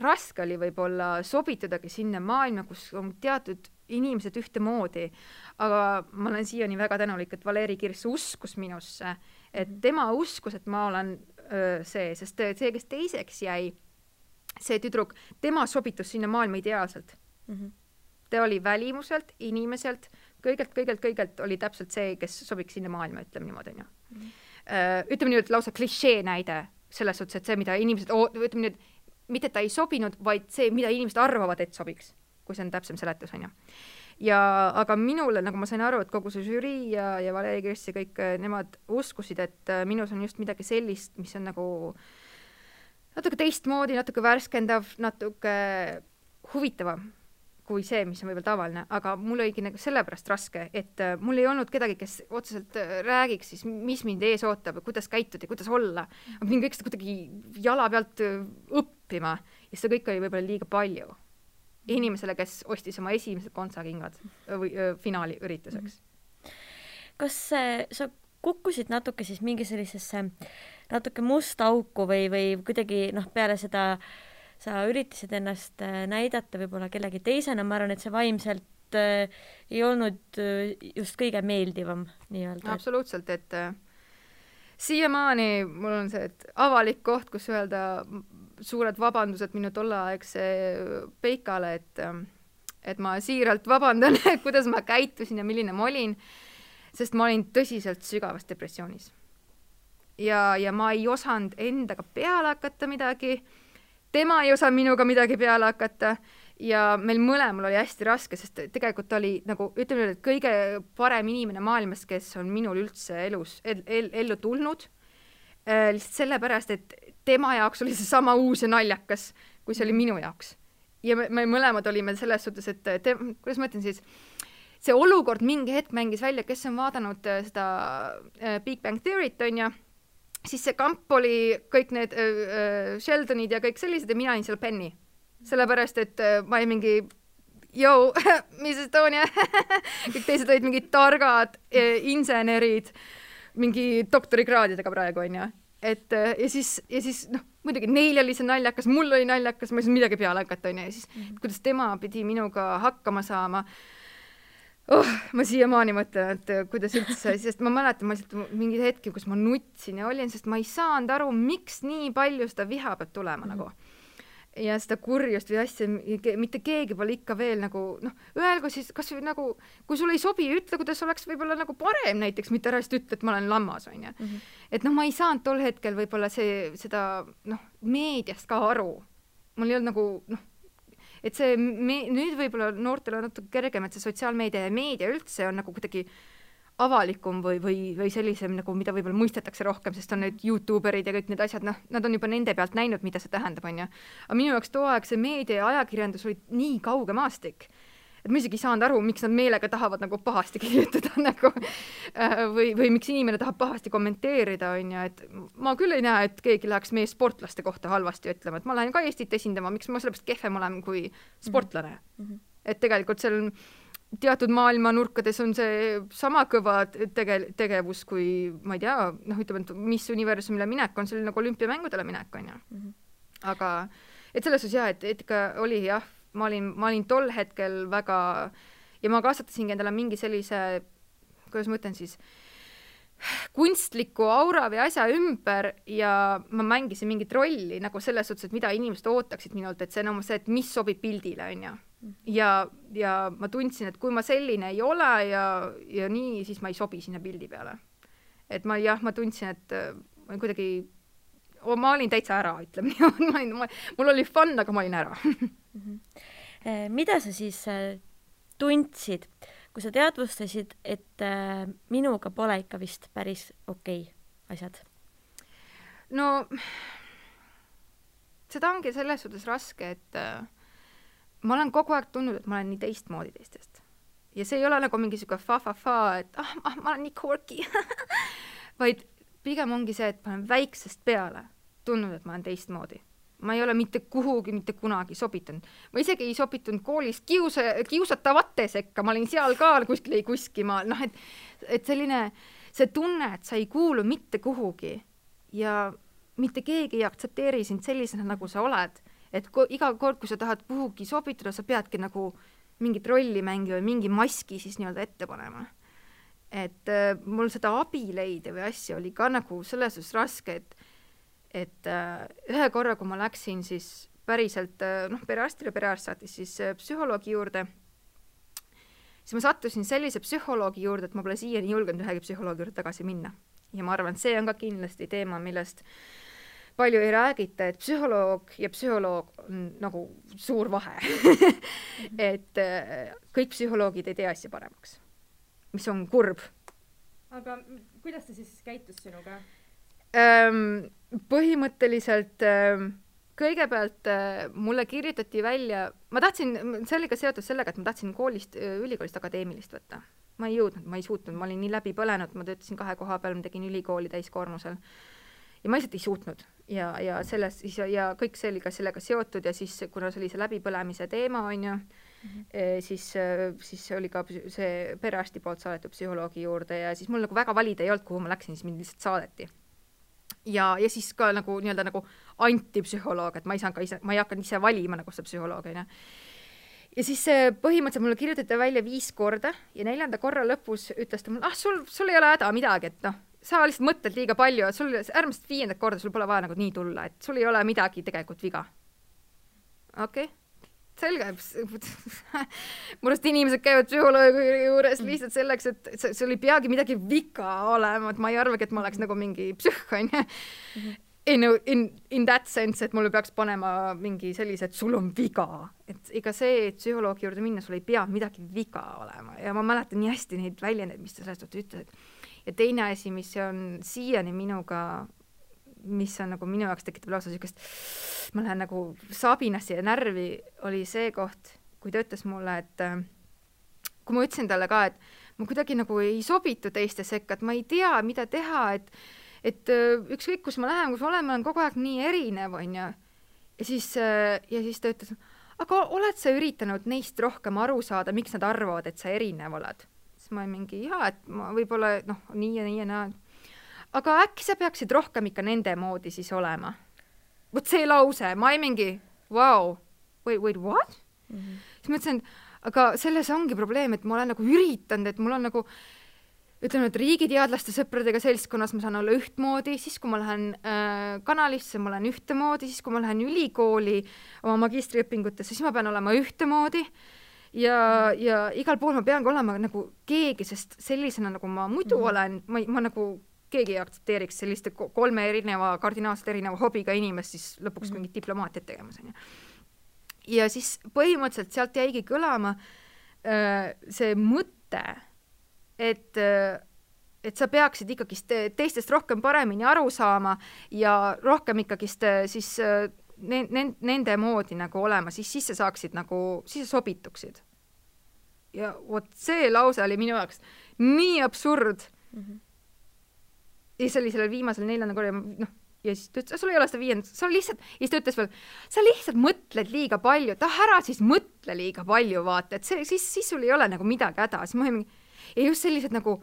raske oli võib-olla sobitudagi sinna maailma, kus on teatud inimesed ühtemoodi, aga ma olen siiani väga tänulik, et Valeri Kirss uskus minusse, et tema uskus, et ma olen see, sest see, kes teiseks jäi, see tüdruk, tema sobitus sinna maailma ideaalselt. Ta oli välimuselt, inimeselt, kõigelt oli täpselt see, kes sobiks sinna maailma, ütleme niimoodi. Ütleme nii, et lausa klišee näide selles suhtes, et see, mida inimesed, ütleme nüüd, mitte ta ei sobinud, vaid see, mida inimesed arvavad, et sobiks, kui see on täpsem seletus, aga minule, nagu ma sain aru, et kogu see žürii ja Valeri Kirss ja kõik nemad uskusid, et minus on just midagi sellist, mis on nagu natuke teistmoodi, natuke värskendav, natuke huvitavam kui see, mis on võib-olla tavaline, aga mul oligi nagu sellepärast raske, et mul ei olnud kedagi, kes otseselt räägiks siis, mis mind ees ootab, kuidas käituda ja kuidas olla. Ma pidin kõik seda kuidagi jala pealt õppima ja seda kõik oli võib-olla liiga palju inimesele, kes ostis oma esimesed kontsakingad või finaali ürituseks. kas sa kukkusid natuke siis mingi sellisesse natuke musta auku või kuidagi peale seda sa üritasid ennast näidata võib-olla kellegi teisena, ma arvan, et see vaimselt ei olnud just kõige meeldivam nii-öelda. Absoluutselt, et siiamaani mul on see, et avalik koht, kus öelda suured vabandused minu tolleaegse peikale, et ma siiralt vabandan, kuidas ma käitusin ja milline ma olin, sest ma olin tõsiselt sügavas depressioonis. Ja ma ei osanud endaga peale hakata midagi, tema ei osanud minuga midagi peale hakata ja meil mõlemal oli hästi raske, sest tegelikult oli nagu, ütleme, et kõige parem inimene maailmas, kes on minul üldse ellu tulnud, lihtsalt sellepärast, et tema jaoks oli see sama uus ja naljakas, kui see oli minu jaoks. Ja me mõlemad olime selles suhtes, et kuidas ma ütlen siis, see olukord mingi hetk mängis välja, kes on vaadanud seda Big Bang Theory't, on ja siis see kamp oli kõik need Sheldonid ja kõik sellised ja mina olin seal Penny. Sellepärast, et ma olin mingi Miss Estonia, kõik teised olid mingid targad insenerid, mingi doktorikraadidega praegu, on ja. Ja siis muidugi neil oli see naljakas, mul oli naljakas, ma ei saa midagi peale hakata, on ja siis kuidas tema pidi minuga hakkama saama. Ma siiamaani mõtlen, et kuidas üldse, sest ma mäletan, ma lihtsalt mingi hetki, kus ma nutsin ja olin, sest ma ei saanud aru, miks nii palju seda viha peab tulema nagu. Ja seda kurjust või asja, mitte keegi pole ikka veel nagu, öelgu siis, kas või nagu, kui sul ei sobi, ütle, kuidas oleks võib-olla nagu parem näiteks, mitte ära ütle, et ma olen lammas, on ja. Et ma ei saanud tol hetkel võib-olla seda meediast ka aru. Mul ei olnud nagu, et see nüüd võib-olla noortel on natuke kergem, et see sotsiaalmeedia ja meedia üldse on nagu kuidagi avalikum või sellisem, nagu mida võib-olla mõistetakse rohkem, sest on need YouTuberid ja kõik need asjad, nad on juba nende pealt näinud, mida see tähendab, on ja. Aga minu jaoks too aeg see meedia ja ajakirjandus oli nii kauge maastik, et ma isegi ei saanud aru, miks nad meelega tahavad nagu pahasti kirjutada nagu, või miks inimene tahab pahasti kommenteerida, on ja, et ma küll ei näe, et keegi läheks meie sportlaste kohta halvasti ütlema, et ma lähen ka Eestit esindama, miks ma sellepärast kehvem olen kui sportlane. Et tegelikult seal teatud maailma nurkades on see sama kõva tegevus kui, ma ei tea, ütleme, et mis universumile minek on, see oli nagu olümpiamängudele minek, on ja. Aga, et selles osas et ikka oli jah, ma olin tol hetkel väga, ja ma kasvatasingi endale mingi sellise, kuidas ma ütlen siis, kunstliku aura või asja ümber ja ma mängisin mingit rolli nagu selles suhtes, et mida inimesed ootaksid minult, et see on see, et mis sobib pildile, on ja. Ja ma tundsin, et kui ma selline ei ole ja nii, siis ma ei sobi sinna pildi peale. Et ma tundsin, et ma kuidagi, ma olin täitsa ära, ütleme nii. Mul oli fun, aga ma olin ära. Mida sa siis tundsid, kui sa teadvustasid, et minuga pole ikka vist päris okei asjad? No, seda ongi selles suhtes raske, et ma olen kogu aeg tundnud, et ma olen nii teistmoodi teistest. Ja see ei ole nagu mingi siuke fa-fa-fa, et ma olen nii quirky. Vaid pigem ongi see, et ma olen väiksest peale tundnud, et ma olen teistmoodi. Ma ei ole mitte kuhugi, mitte kunagi sobitunud. Ma isegi ei sobitunud koolis kiusatavate sekka, ma olin seal ka kuskil ei kuskimaal. Et selline, see tunne, et sa ei kuulu mitte kuhugi ja mitte keegi ei aktsepteeri sind sellisena, nagu sa oled. Et iga kord, kui sa tahad kuhugi sobituda, sa peadki nagu mingit rolli mängi või mingi maski siis nii-öelda ette panema. Et mul seda abileide või asja oli ka nagu selles suhtes raske, et ühe korra, kui ma läksin siis päriselt perearstile, perearst saatis siis psühholoogi juurde, siis ma sattusin sellise psühholoogi juurde, et ma pole siiani julgenud ühegi psühholoogi juurde tagasi minna. Ja ma arvan, see on ka kindlasti teema, millest palju ei räägita, et psühholoog ja psühholoog on nagu suur vahe. Et kõik psühholoogid ei tee asja paremaks, mis on kurb. Aga kuidas ta siis käitus sinuga? Põhimõtteliselt kõigepealt mulle kirjutati välja, ma tahtsin, sellega seotud sellega, et ma tahtsin ülikoolist akadeemilist võtta. Ma ei jõudnud, ma ei suutnud, ma olin nii läbi põlenud, ma töötasin 2 koha peal, ma tegin ülikooli täiskoormusel. Ja ma lihtsalt ei suutnud. ja sellest siis ja kõik see oli ka sellega seotud ja siis kuna see oli see läbipõlemise teema on ju, siis oli ka see perearsti poolt saadetud psühholoogi juurde ja siis mul nagu väga valida ei olnud, kuhu ma läksin, siis mind lihtsalt saadeti. Ja siis ka nagu nii-öelda nagu antipsühholoog, et ma ei hakanud ise valima nagu seda psühholoogi. Ja siis põhimõtteliselt mulle kirjutati välja 5 korda ja 4. korra lõpus ütles ta mulle, sul ei ole häda midagi, et sa lihtsalt mõtled liiga palju, et sul äärmiselt 5. korda sul pole vaja nagu nii tulla, et sul ei ole midagi tegelikult viga. Okei. Selge. Murust inimesed käivad psühholoogi juures lihtsalt selleks, et sul ei peagi midagi viga olema, et ma ei arvagi, et ma oleks nagu mingi psühh, on ju. In that sense, et mulle peaks panema mingi sellise, et sul on viga. Et ega see, et psühholoogi juurde minna, sul ei pea midagi viga olema. Ja ma mäletan nii hästi neid väljendeid, mis ta sellest ütles. Ja teine asi, mis on siiani minuga, mis on nagu minu jaoks tekitab lausa sellist, ma lähen nagu sabinasse ja närvi, oli see koht, kui ta ütles mulle, et kui ma ütlesin talle ka, et ma kuidagi nagu ei sobitu teiste sekka, et ma ei tea, mida teha, et ükskõik, kus ma lähen, kus ma olen kogu aeg nii erinev, on ju. Ja siis ta ütles, aga oled sa üritanud neist rohkem aru saada, miks nad arvavad, et sa erinev oled? Siis ma mingi, et ma võib-olla nii ja nii ja näen. Aga äkki sa peaksid rohkem ikka nende moodi siis olema. Võt see lause, ma ei mingi, wow, wait, what? Siis ma ütlesin, aga selles ongi probleem, et ma olen nagu üritanud, et mul on nagu, ütleme, et riigiteadlaste sõpradega seltskonnas ma saan olla ühtmoodi, siis kui ma lähen kanalisse, ma olen ühtemoodi, siis kui ma lähen ülikooli oma magistriõpingutesse, siis ma pean olema ühtemoodi ja igal pool ma pean olema nagu keegi, sest sellisena nagu ma muidu olen, ma nagu keegi ei aktsepteeriks selliste 3 kardinaalselt erineva hobiga inimest siis lõpuks mingit diplomaatiat tegemas. Ja siis põhimõtteliselt sealt jäigi kõlama see mõte, et sa peaksid ikkagi teistest rohkem paremini aru saama ja rohkem ikkagi siis nende moodi nagu olema, siis sa saaksid nagu, siis sa sobituksid. Ja vot see lause oli minu jaoks nii absurd. Ja see oli sellel viimasel 4. korra, ja siis ta ütles, sul ei ole seda 5. sa lihtsalt, ja siis ta ütles veel, sa lihtsalt mõtled liiga palju, ära siis mõtle liiga palju, vaata, et siis sul ei ole nagu midagi häda, siis ma ei mingi, ja just sellised nagu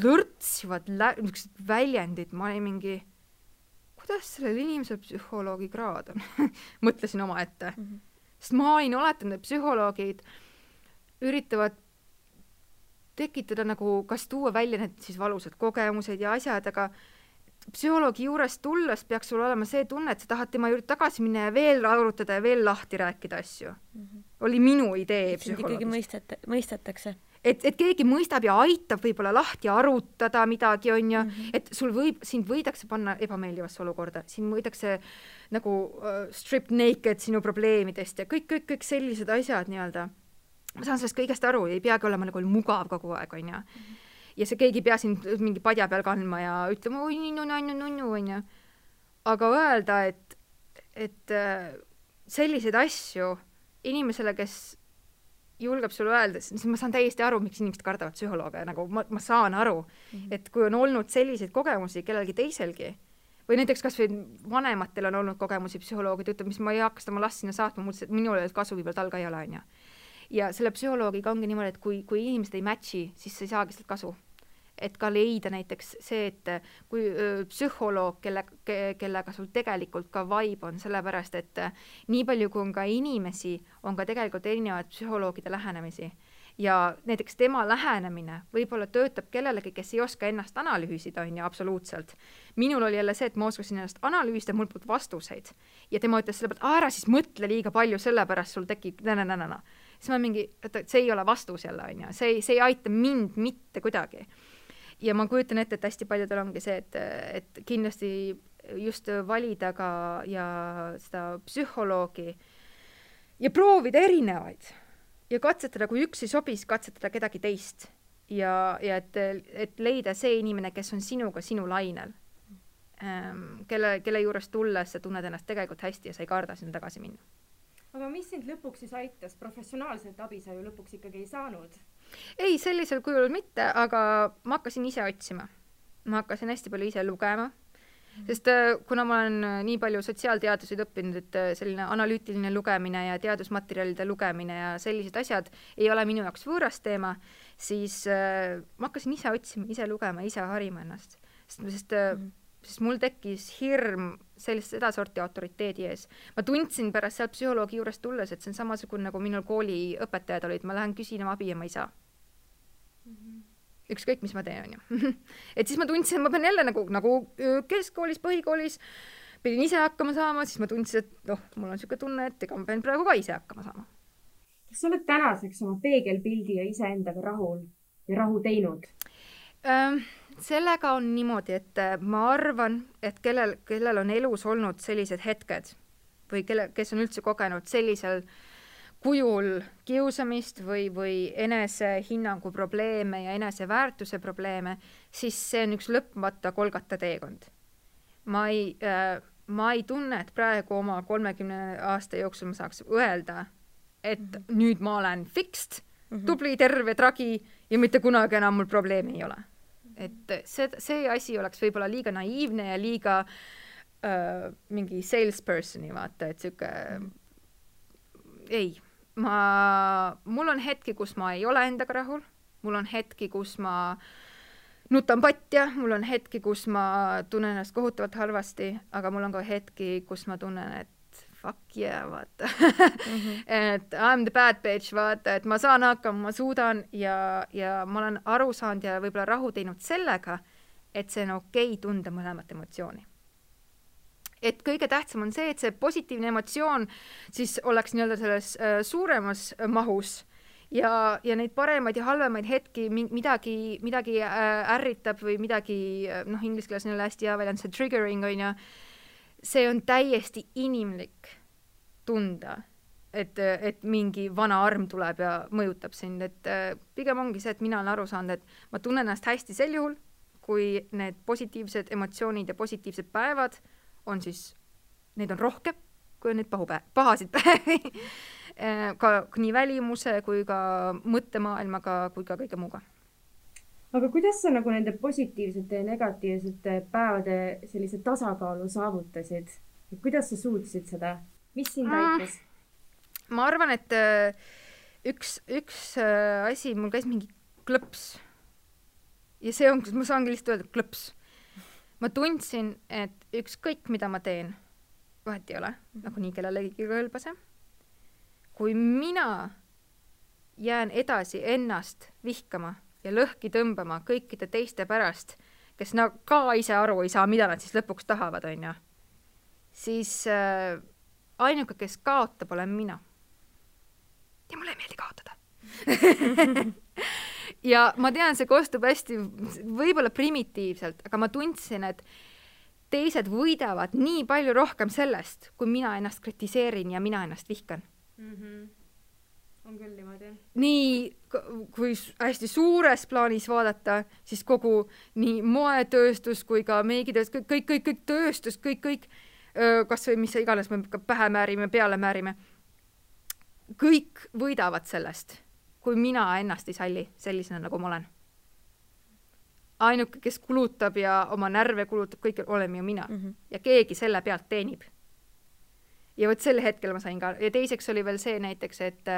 lõrtsivad väljendid, ma ei mingi, kuidas sellel inimesel psühholoogi kraad on? Mõtlesin oma ette. Sest ma olin oletanud, et psühholoogid üritavad tekitada nagu, kas tuua välja need siis valusad kogemused ja asjad, aga psühholoogi juures tulles peaks sul olema see tunne, et sa tahad tema juurde tagasi minna ja veel arutada ja veel lahti rääkida asju. Oli minu idee psühholoogist. Ikkagi mõistetakse. Et keegi mõistab ja aitab võib-olla lahti arutada midagi, on ju, et sind võidakse panna ebameeldivasse olukorda, sind võidakse nagu strip naked sinu probleemidest ja kõik sellised asjad nii-öelda. Ma saan sellest kõigest aru, ei peagi olema nagu mugav kogu aeg, on ju. Ja see keegi pea sind mingi padja peal kandma ja ütlema, oi, nunnu, on ju. Aga öelda, et selliseid asju inimesele, kes julgeb sulle öelda, siis ma saan täiesti aru, miks inimesed kardavad psühholooge, nagu ma saan aru, et kui on olnud selliseid kogemusi kellelgi teiselgi, või näiteks kas või vanematel on olnud kogemusi psühholoogid, ütleb, mis ma ei hakka seda ma last sinna saatma, minul ei ole kasu, viibel tal ka ei ole, on ju. Ja selle psühholoogiga ongi niimoodi, et kui inimesed ei matchi, siis sa ei saagi sealt kasu. Et ka leida näiteks see, et kui psühholoog, kellega sul tegelikult ka vibe on, sellepärast, et nii palju kui on ka inimesi, on ka tegelikult erinevaid psühholoogide lähenemisi. Ja näiteks tema lähenemine võib-olla töötab kellelegi, kes ei oska ennast analüüsida, on ju, absoluutselt. Minul oli jälle see, et ma oskasin ennast analüüsida, mul polnud vastuseid. Ja tema ütles selle pealt, ära siis mõtle liiga palju, sellepärast sul tekib siis ma mingi, et see ei ole vastus jälle, on ju. See ei aita mind mitte kuidagi. Ja ma kujutan ette, et hästi paljudel ongi see, et kindlasti just valida ka ja seda psühholoogi ja proovida erinevaid ja katsetada, kui üks ei sobis, katsetada kedagi teist ja et leida see inimene, kes on sinuga sinu lainel, kelle juures tulles sa tunned ennast tegelikult hästi ja sa ei karda sinna tagasi minna. Aga mis sind lõpuks siis aitas? Professionaalselt abi sa ju lõpuks ikkagi ei saanud. Ei, sellisel kujul mitte, aga ma hakkasin ise otsima. Ma hakkasin hästi palju ise lugema. Sest kuna ma olen nii palju sotsiaalteaduseid õppinud, et selline analüütiline lugemine ja teadusmaterjalide lugemine ja sellised asjad ei ole minu jaoks võõras teema, siis ma hakkasin ise otsima, ise lugema, ise harima ennast. Sest mul tekkis hirm seda sorti autoriteedi ees. Ma tundsin pärast sealt psühholoogi juures tulles, et see on samasugune, nagu minul kooli õpetajad olid, ma lähen küsin abi ja ma ei saa. Ükskõik, mis ma teen, on ju. Et siis ma tundsin, et ma pean jälle nagu keskkoolis, põhikoolis, pidin ise hakkama saama, siis ma tundsin, et mul on selline tunne, et ega ma pean praegu ka ise hakkama saama. Kas sa oled tänaseks oma peegelpildi ja iseendaga rahul ja rahu teinud? Sellega on niimoodi, et ma arvan, et kellel on elus olnud sellised hetked või kes on üldse kogenud sellisel kujul kiusamist või enesehinnangu probleeme ja eneseväärtuse probleeme, siis see on üks lõpmata kolgata teekond. Ma ei tunne, et praegu oma 30 aasta jooksul ma saaks öelda, et nüüd ma olen fixed, tubli, terve, tragi ja mitte kunagi enam mul probleemi ei ole. Et see asi oleks võib-olla liiga naiivne ja liiga mingi salespersoni vaata, et siuke ei. Mul on hetki, kus ma ei ole endaga rahul, mul on hetki, kus ma nutan patja, mul on hetki, kus ma tunnen ennast kohutavalt halvasti, aga mul on ka hetki, kus ma tunnen, et fuck yeah, vaata. Et I'm the bad bitch, vaata, et ma saan hakkama, ma suudan ja ma olen aru saanud ja võib-olla rahu teinud sellega, et see on okei tunda mõlemat emotsiooni. Et kõige tähtsam on see, et see positiivne emotsioon siis oleks nii-öelda selles suuremas mahus ja neid paremaid ja halvemaid hetki midagi ärritab või midagi, inglise keeles on hästi hea väljend, see triggering on ja see on täiesti inimlik tunda, et mingi vana arm tuleb ja mõjutab sind, et pigem ongi see, et mina olen aru saanud, et ma tunnen ennast hästi sel juhul, kui need positiivsed emotsioonid ja positiivsed päevad on siis, neid on rohkem, kui on neid pahasid päevi. Ka nii välimuse kui ka mõttemaailmaga kui ka kõige muuga. Aga kuidas sa nagu nende positiivsete ja negatiivsete päevade sellise tasakaalu saavutasid? Kuidas sa suutsid seda? Mis sind aitas? Ma arvan, et üks asi, mul käis mingi klõps. Ja see on, ma saangi lihtsalt öelda klõps. Ma tundsin, et ükskõik, mida ma teen, vahet ei ole, nagu nii kellelegi kõlbase. Kui mina jään edasi ennast vihkama ja lõhki tõmbama kõikide teiste pärast, kes ka ise aru ei saa, mida nad siis lõpuks tahavad, on ju, siis ainuke, kes kaotab, olen mina. Ja mulle ei meeldi kaotada. Ja ma tean, see kostub hästi võib-olla primitiivselt, aga ma tundsin, et teised võidavad nii palju rohkem sellest, kui mina ennast kritiseerin ja mina ennast vihkan. On küll niimoodi. Nii, kui hästi suures plaanis vaadata, siis kogu nii moetööstus kui ka meigitööstus, kõik tööstus, kõik, kas või mis iganes me pähe määrime, peale määrime, kõik võidavad sellest, kui mina ennast ei salli sellisena, nagu ma olen. Ainuke, kes kulutab ja oma närve kulutab, kõik oleme ju mina. Ja keegi selle pealt teenib. Ja võt selle hetkel ma sain ka. Ja teiseks oli veel see näiteks, et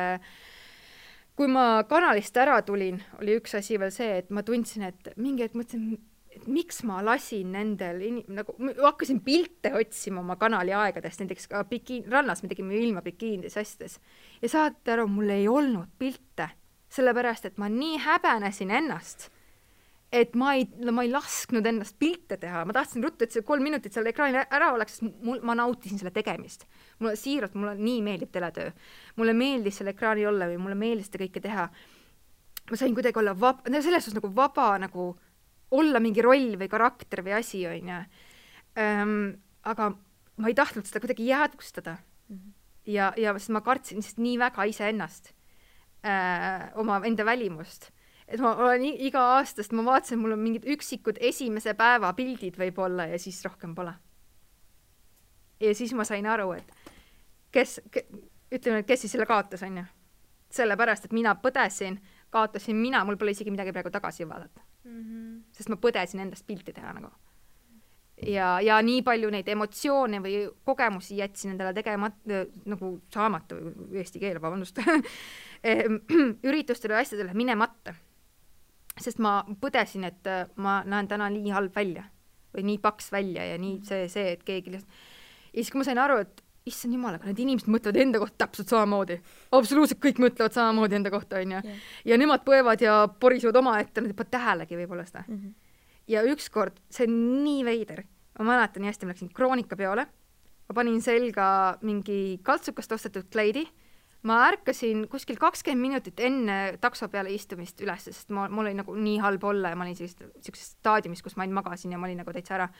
kui ma kanalist ära tulin, oli üks asi veel see, et ma tundsin, et mingi hetk mõtlesin, et miks ma lasin nendel, nagu hakkasin pilte otsima oma kanali aegadest, näiteks ka rannas me tegime ilma bikiinides asjades. Ja saate aru, mul ei olnud pilte, sellepärast, et ma nii häbenesin ennast, et ma ei lasknud ennast pilte teha. Ma tahtsin ruttu, et see 3 minutit seal ekraanil ära oleks, sest ma nautisin selle tegemist. Mulle siiralt, mulle nii meeldib teletöö. Mulle meeldis selle ekraani olla või mulle meeldis seda kõike teha. Ma sain kuidagi olla selles suhtes nagu vaba, nagu olla mingi roll või karakter või asi, on ju. Aga ma ei tahtnud seda kuidagi jäädvustada. Ja sest ma kartsin sest nii väga ise ennast, oma enda välimust. Et ma olen iga aastast, ma vaatasin, mul on mingid üksikud esimese päeva pildid võib-olla ja siis rohkem pole. Ja siis ma sain aru, et kes siis selle kaotas, on ju. Sellepärast, et mina põdesin, kaotasin mina, mul pole isegi midagi praegu tagasi vaadata. Sest ma põdesin endast pilti teha nagu. ja nii palju neid emotsioone või kogemusi jätsin endale nagu saamata, eesti keel, vabandust, üritustele ja asjadele minemata. Sest ma põdesin, et ma näen täna nii halb välja või nii paks välja ja nii see, et keegi lihtsalt... Ja siis kui ma sain aru, et issand jumal, aga need inimesed mõtlevad enda kohta täpselt samamoodi. Absoluutselt kõik mõtlevad samamoodi enda kohta, on ju. Ja nemad põevad ja porisevad oma ette, nad ei pane tähelegi võib-olla seda. Ja ükskord, see on nii veider. Ma mäletan nii hästi, ma läksin Kroonika peole. Ma panin selga mingi kaltsukast ostetud kleidi. Ma ärkasin kuskil 20 minutit enne takso peale istumist üles, sest mul oli nagu nii halb olla ja ma olin sellises staadiumis, kus ma magasin ja ma olin nagu täitsa ära.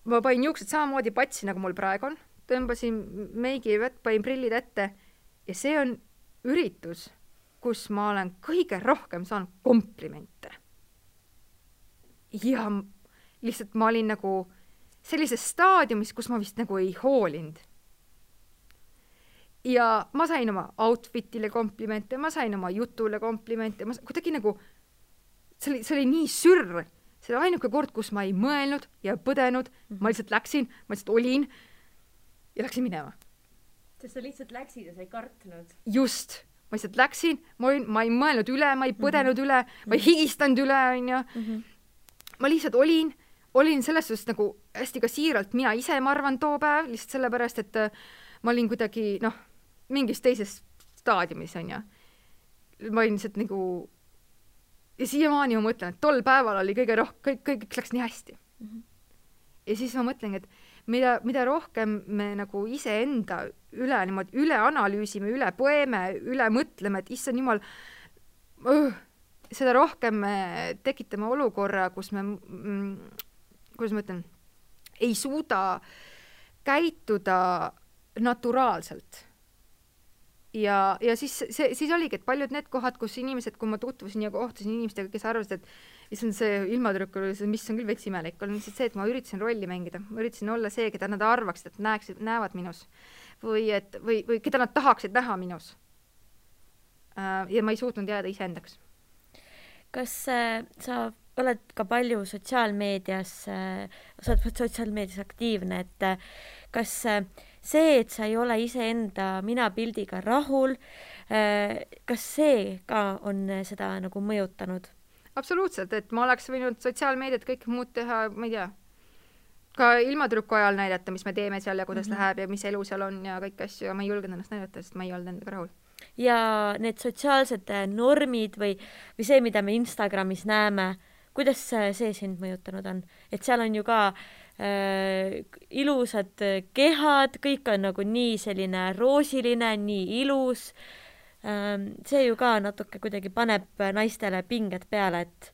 Ma panin juuksed samamoodi patsi, nagu mul praegu on. Tõmbasin meigi vett, panin prillid ette ja see on üritus, kus ma olen kõige rohkem saanud komplimente. Ja lihtsalt ma olin nagu sellises staadiumis, kus ma vist nagu ei hoolinud. Ja ma sain oma outfitile komplimente, ma sain oma jutule komplimente, kuidagi nagu, see oli nii sürr. See oli ainuke kord, kus ma ei mõelnud ja põdenud, ma lihtsalt läksin, ma lihtsalt olin ja läksin minema. Sest sa lihtsalt läksid ja sa ei kartnud. Just, ma lihtsalt läksin, ma ei mõelnud üle, ma ei põdenud üle, ma ei higistanud üle, on ju. Ma lihtsalt olin selles suhtes nagu hästi ka siiralt mina ise, ma arvan, too päev, lihtsalt sellepärast, et ma olin kuidagi, mingis teises staadiumis, on ju. Ma olin lihtsalt nagu, ja siiamaani ma mõtlen, et tol päeval oli kõige rohkem, kõik läks nii hästi. Ja siis ma mõtlen, et mida rohkem me nagu iseenda üle analüüsime, üle poeme, üle mõtleme, et issand jumal, seda rohkem me tekitame olukorra, kus me, kuidas ma ütlen, ei suuda käituda naturaalselt. Ja siis oligi, et paljud need kohad, kus inimesed, kui ma tutvusin ja kohtusin inimestega, kes arvasid, et see ilmatrükk oli, mis on küll veits imelik, on lihtsalt see, et ma üritasin rolli mängida. Ma üritasin olla see, keda nad arvaksid, et näevad minus. Või keda nad tahaksid näha minus. Ja ma ei suutnud jääda iseendaks. Kas sa oled ka palju sotsiaalmeedias aktiivne, et kas see, et sa ei ole iseenda minapildiga rahul, kas see ka on seda nagu mõjutanud? Absoluutselt, et ma oleks võinud sotsiaalmeediat kõik muud teha, ma ei tea, ka ilmatrüku ajal näidata, mis me teeme seal ja kuidas läheb ja mis elu seal on ja kõik asju, ja ma ei julgenud ennast näidata, sest ma ei olnud endaga rahul. Ja need sotsiaalsed normid või see, mida me Instagramis näeme, kuidas see sind mõjutanud on? Et seal on ju ka ilusad kehad, kõik on nagu nii selline roosiline, nii ilus. See ju ka natuke kuidagi paneb naistele pinged peale, et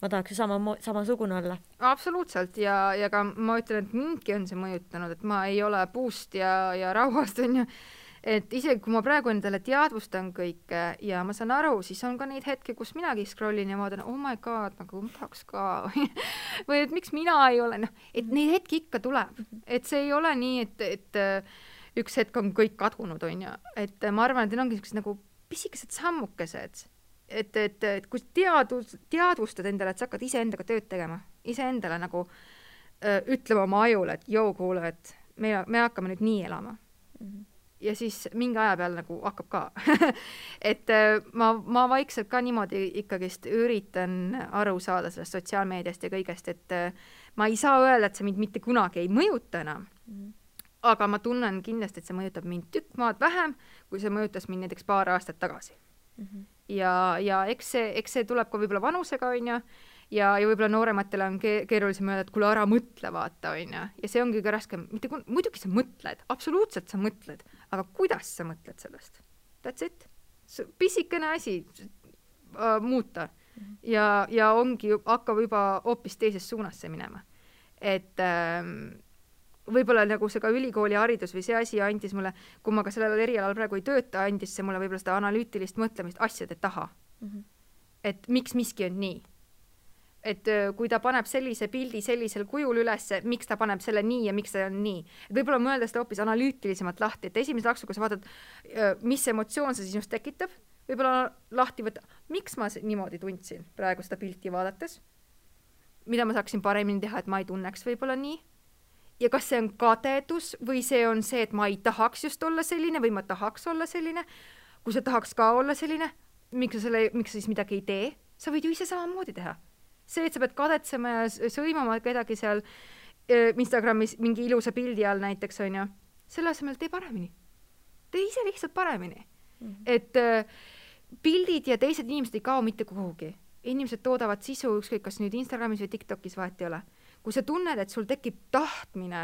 ma tahaks ju samasugune olla. Absoluutselt ja ka ma ütlen, et mindki on see mõjutanud, et ma ei ole puust ja rauhast, on ju. Et isegi kui ma praegu endale teadvustan kõike ja ma saan aru, siis on ka neid hetki, kus minagi scrollin ja ma vaatan, oh my god, nagu ma tahaks ka. Või et miks mina ei ole, et neid hetki ikka tuleb. Et see ei ole nii, et üks hetk on kõik kadunud, on ju. Et ma arvan, et need ongi nagu pisikesed sammukesed. Et kui teadvustad endale, et sa hakkad iseendaga tööd tegema, iseendale nagu ütlema oma ajule, et joo, kuule, et me hakkame nüüd nii elama. Ja siis mingi aja peal nagu hakkab ka. Et ma vaikselt ka niimoodi ikkagist üritan aru saada sellest sotsiaalmeediast ja kõigest, et ma ei saa öelda, et see mind mitte kunagi ei mõjuta enam. Aga ma tunnen kindlasti, et see mõjutab mind tükk maad vähem, kui see mõjutas mind näiteks paar aastat tagasi. Ja eks see tuleb ka võib-olla vanusega, on ju, ja võib-olla noorematele on keerulisem öelda, et kuule ära mõtle, vaata, on ju. Ja see ongi ka raskem. Muidugi sa mõtled, absoluutselt sa mõtled, aga kuidas sa mõtled sellest? That's it. Pisikene asi muuta. Ja ongi, hakkab juba hoopis teises suunas see minema. Et võib-olla nagu see ka ülikooli haridus või see asi andis mulle, kui ma ka sellel erialal praegu ei tööta, andis see mulle võib-olla seda analüütilist mõtlemist asjade taha. Et miks miski on nii? Et kui ta paneb sellise pildi sellisel kujul üles, miks ta paneb selle nii ja miks ta on nii. Et võib-olla mõelda seda hoopis analüütilisemalt lahti, et esimese laksu, kui sa vaatad, mis emotsioon see sinust tekitab, võib-olla lahti võtta, miks ma niimoodi tundsin praegu seda pilti vaadates. mida ma saaksin paremini teha, et ma ei tunneks võib-olla nii. Ja kas see on kadedus või see on see, et ma ei tahaks just olla selline või ma tahaks olla selline. Kui sa tahaks ka olla selline, miks sa siis midagi ei tee? Sa võid ju ise samamoodi teha. See, et sa pead kadetsema ja sõimama kedagi seal Instagramis mingi ilusa pildi all näiteks, on ju, selle asemel tee paremini. Tee ise lihtsalt paremini. Et pildid ja teised inimesed ei kao mitte kuhugi. Inimesed toodavad sisu, ükskõik kas nüüd Instagramis või TikTokis vahet ei ole. Kui sa tunned, et sul tekib tahtmine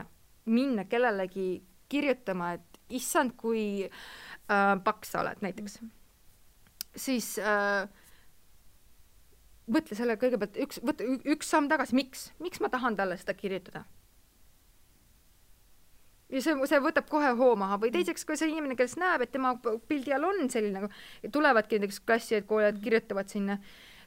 minna kellelegi kirjutama, et issand, kui paks sa oled näiteks, siis mõtle selle kõigepealt üks samm tagasi, miks ma tahan talle seda kirjutada? Ja see võtab kohe hoo maha või teiseks, kui see inimene, kes näeb, et tema pildi all on selline, tulevadki näiteks klassi, et koolid kirjutavad sinna,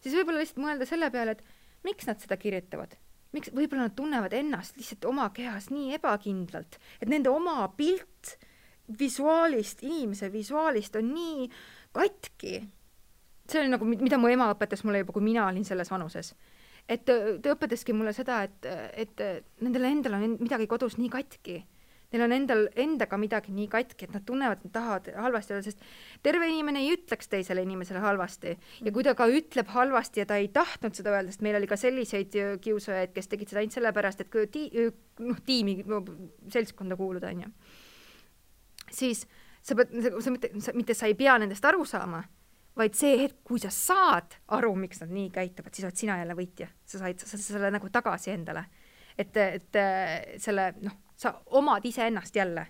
siis võib-olla lihtsalt mõelda selle peale, et miks nad seda kirjutavad? Miks võib-olla nad tunnevad ennast lihtsalt oma kehas nii ebakindlalt, et nende oma pilt inimese visuaalist on nii katki. See oli nagu, mida mu ema õpetas mulle juba, kui mina olin selles vanuses. Et ta õpetaski mulle seda, et nendel endal on midagi kodus nii katki. Neil on endaga midagi nii katki, et nad tunnevad, et nad tahavad halvasti olla, sest terve inimene ei ütleks teisele inimesele halvasti. Ja kui ta ka ütleb halvasti ja ta ei tahtnud seda öelda, sest meil oli ka selliseid kiusajaid, kes tegid seda ainult sellepärast, et tiimi seltskonda kuuluda, on ju. Siis sa ei pea nendest aru saama, vaid see hetk, kui sa saad aru, miks nad nii käituvad, siis oled sina jälle võitja. Sa said selle nagu tagasi endale. Et selle, sa omad ise ennast jälle.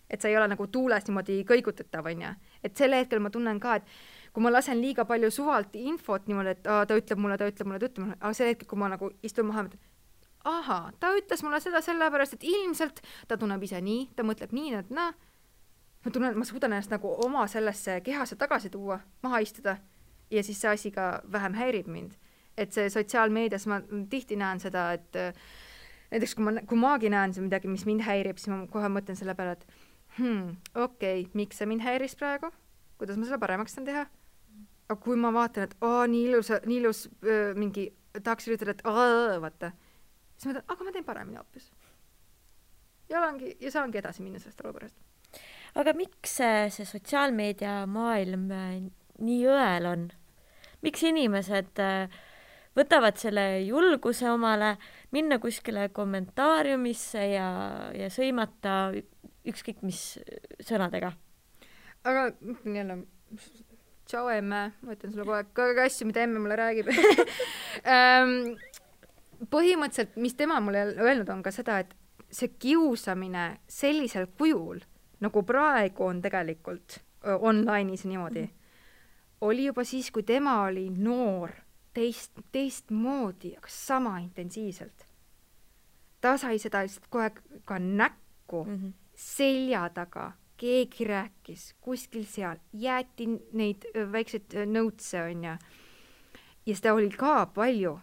Et sa ei ole nagu tuules niimoodi kõigutatav, on ja. Et selle hetkel ma tunnen ka, et kui ma lasen liiga palju suvalt infot niimoodi, et ta ütleb mulle, aga selle hetkel, kui ma nagu istun maha, ta ütles mulle seda sellepärast, et ilmselt ta tunneb ise nii, ta mõtleb nii, et ma tunnen, et ma suudan ennast nagu oma sellesse kehasse tagasi tuua, maha istuda ja siis see asi ka vähem häirib mind. Et see sotsiaalmeedias ma tihti näen seda, et näiteks kui maagi näen see midagi, mis mind häirib, siis ma kohe mõtlen selle peale, et okei, miks see mind häiris praegu? Kuidas ma selle paremaks saan teha? Aga kui ma vaatan, et nii ilus mingi tahaks üritada, et vaata, siis ma mõtlen, aga ma teen paremini hoopis. Ja saangi edasi minna sellest olukorrast. Aga miks see sotsiaalmeedia maailm nii õel on? Miks inimesed võtavad selle julguse omale minna kuskile kommentaariumisse ja sõimata ükskõik mis sõnadega? Aga jälle, tšau emme, ma ütlen sulle kogu aeg asju, mida emme mulle räägib. Põhimõtteliselt, mis tema mulle öelnud on ka seda, et see kiusamine sellisel kujul, nagu praegu on tegelikult online'is niimoodi, oli juba siis, kui tema oli noor, teistmoodi, aga sama intensiivselt. Ta sai seda lihtsalt kohe ka näkku, selja taga, keegi rääkis, kuskil seal, jäeti neid väikseid nõutse, on ja seda oli ka palju.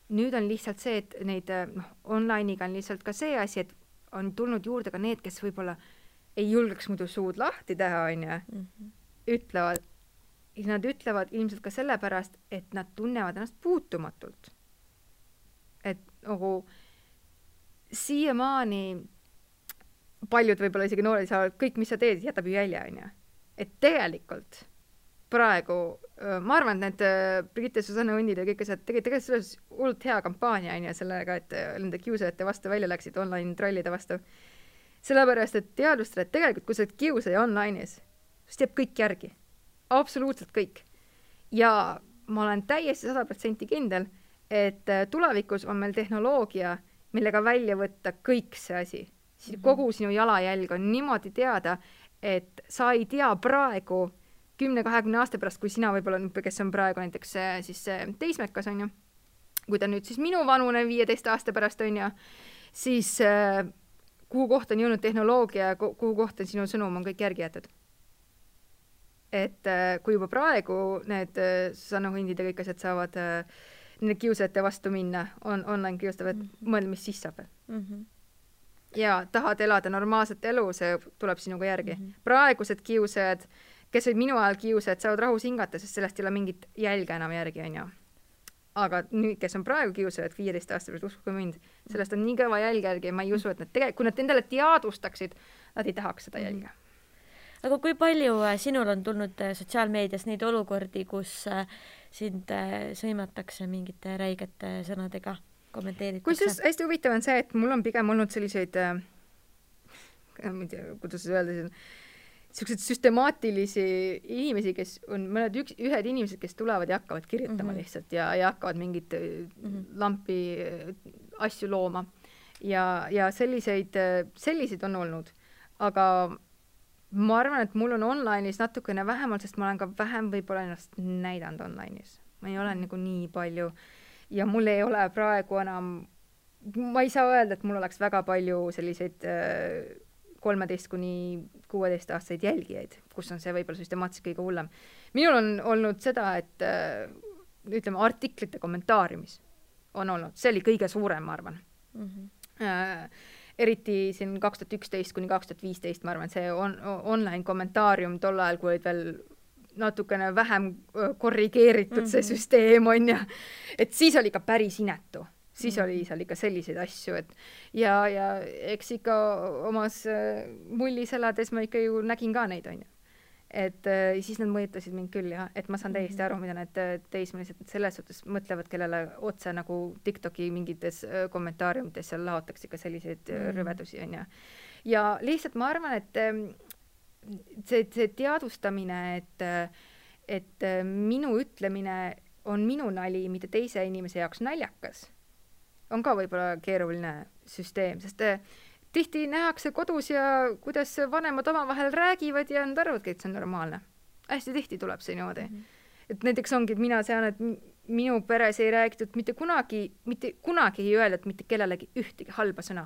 Nüüd on lihtsalt see, et neid online'iga on lihtsalt ka see asi, et on tulnud juurde ka need, kes võib-olla ei julgeks muidu suud lahti teha, on ja ütlevad. Nad ütlevad ilmselt ka sellepärast, et nad tunnevad ennast puutumatult. Et nagu siiamaani paljud võib-olla isegi noored saavad, kõik, mis sa teed, jätab ju jälje, on ja. Et tegelikult praegu, ma arvan, et need Brigitte Susanne Hundid ja kõik asjad tegelikult selles hullult hea kampaania, on ja sellega, et nende kiusajate vastu välja läksid online trollide vastu. Sellepärast, et teadvustada, et tegelikult, kui sa oled kiusaja online'is, siis teeb kõik järgi. Absoluutselt kõik. Ja ma olen täiesti 100% kindel, et tulevikus on meil tehnoloogia, millega välja võtta kõik see asi. Kogu sinu jalajälg on niimoodi teada, et sa ei tea praegu 10-20 aasta pärast, kui sina võib-olla, kes on praegu näiteks siis teismekas, on ju, kui ta nüüd siis minu vanune 15 aasta pärast on ju, siis kuhu kohta on jõudnud tehnoloogia, kuhu kohta sinu sõnum on kõik järgi jäetud. Et kui juba praegu need Susanne Hundid ja kõik asjad saavad nende kiusajate vastu minna, online kiustavad, mõelda, mis siis saab. Ja tahad elada normaalset elu, see tuleb sinuga järgi. Praegused kiusajad, kes olid minu ajal kiusajad, saavad rahus hingata, sest sellest ei ole mingit jälge enam järgi, on ju. aga nüüd, kes on praegu kiusajad 15 aasta pärast, uskuge mind, sellest on nii kõva jälg järgi ja ma ei usu, et nad kui nad endale teadvustaksid, nad ei tahaks seda jälge. Aga kui palju sinul on tulnud sotsiaalmeedias neid olukordi, kus sind sõimatakse mingite räigete sõnadega, kommenteeritakse? Kusjuures hästi huvitav on see, et mul on pigem olnud selliseid, ma ei tea, kuidas öelda, sellised süstemaatilisi inimesi, kes on ühed inimesed, kes tulevad ja hakkavad kirjutama lihtsalt ja hakkavad mingit lampi asju looma. Ja selliseid on olnud. Aga ma arvan, et mul on online'is natukene vähemalt, sest ma olen ka vähem võib-olla ennast näidanud online'is. Ma ei ole nagu nii palju ja mul ei ole praegu enam, ma ei saa öelda, et mul oleks väga palju selliseid 13–16 aastaseid jälgijaid, kus on see võib-olla süstemaatiliselt kõige hullem. Minul on olnud seda, et ütleme, artiklite kommentaariumis on olnud. See oli kõige suurem, ma arvan. Eriti siin 2011–2015, ma arvan, see online kommentaarium tol ajal, kui olid veel natukene vähem korrigeeritud see süsteem on ja et siis oli ka päris inetu. Siis oli seal ikka selliseid asju, et ja eks ikka omas mullis elades ma ikka ju nägin ka neid, on ju. Et siis nad mõjutasid mind küll, jah, et ma saan täiesti aru, mida need teismelised selles suhtes mõtlevad, kellele otse nagu TikToki mingites kommentaariumites seal laotakse ikka selliseid rüvedusi, on ju. Ja lihtsalt ma arvan, et see teadvustamine, et minu ütlemine on minu nali, mitte teise inimese jaoks naljakas, on ka võib-olla keeruline süsteem, sest tihti nähakse kodus ja kuidas vanemad omavahel räägivad ja nad arvavadki, et see on normaalne. Hästi tihti tuleb see niimoodi. Et näiteks ongi, et mina sean, et minu peres ei räägitud mitte kunagi ei öeldud mitte kellelegi ühtegi halba sõna.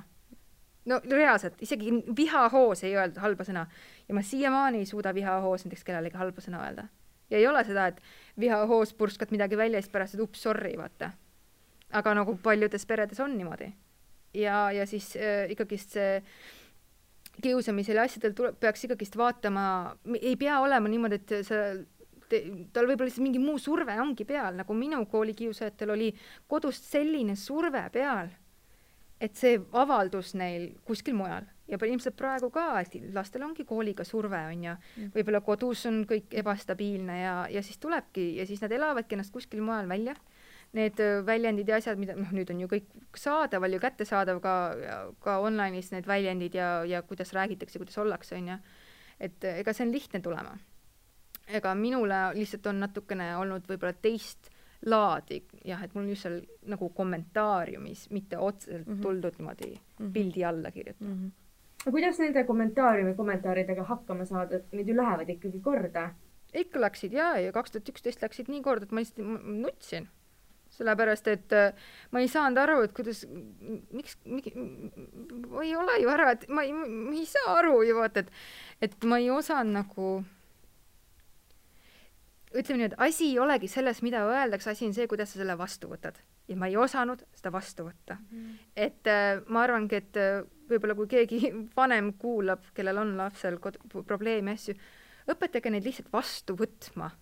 No reaalselt, isegi vihahoos ei öeldud halba sõna. Ja ma siiamaani ei suuda vihahoos näiteks kellelegi halba sõna öelda. Ja ei ole seda, et vihahoos purskad midagi välja ja siis pärast, et sorry, vaata. Aga nagu paljudes peredes on niimoodi. Ja siis ikkagist see kiusamisele asjadel peaks ikkagist vaatama, ei pea olema niimoodi, et tal võib-olla lihtsalt mingi muu surve ongi peal, nagu minu koolikiusajatel oli kodust selline surve peal, et see avaldus neil kuskil mujal. Ja ilmselt praegu ka, et lastel ongi kooliga surve, on ja võib-olla kodus on kõik ebastabiilne ja siis tulebki ja siis nad elavadki ennast kuskil mujal välja. Need väljendid ja asjad, mida nüüd on ju kõik saadaval ja kättesaadav ka online'is need väljendid ja kuidas räägitakse, kuidas ollakse, on ja. Et ega see on lihtne tulema. Ega minule lihtsalt on natukene olnud võib-olla teist laadi, jah, et mul on just seal nagu kommentaariumis, mitte otseselt tuldud niimoodi pildi alla kirjutada. No kuidas nende kommentaaridega hakkama saada, et need ju lähevad ikkagi korda? Ikka läksid, ja 2011 läksid nii korda, et ma lihtsalt nutsin. Sellepärast, et ma ei saanud aru, et kuidas, miks ma ei ole ju ära, et ma ei saa aru ju, vaata, et ma ei osanud nagu, ütleme nii, et asi ei olegi selles, mida öeldakse, asi on see, kuidas sa selle vastu võtad. Ja ma ei osanud seda vastu võtta. Et ma arvangi, et võib-olla kui keegi vanem kuulab, kellel on lapsel probleemi asju, õpetage neid lihtsalt vastu võtma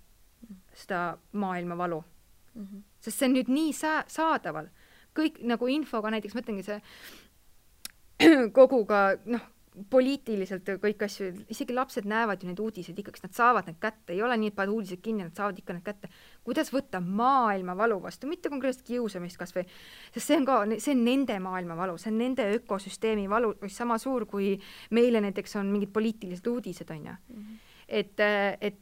seda maailma valu. Sest see on nüüd nii saadaval. Kõik nagu infoga, näiteks mõtlengi see koguga, poliitiliselt kõik asju, isegi lapsed näevad ju neid uudiseid ikkagi, nad saavad need kätte, ei ole nii, et paned uudised kinni, nad saavad ikka need kätte. Kuidas võtta maailma valu vastu, mitte konkreetselt kiusamist kas või, sest see on nende maailma valu, see on nende ökosüsteemi valu, sama suur kui meile näiteks on mingid poliitilised uudised, on ja. Et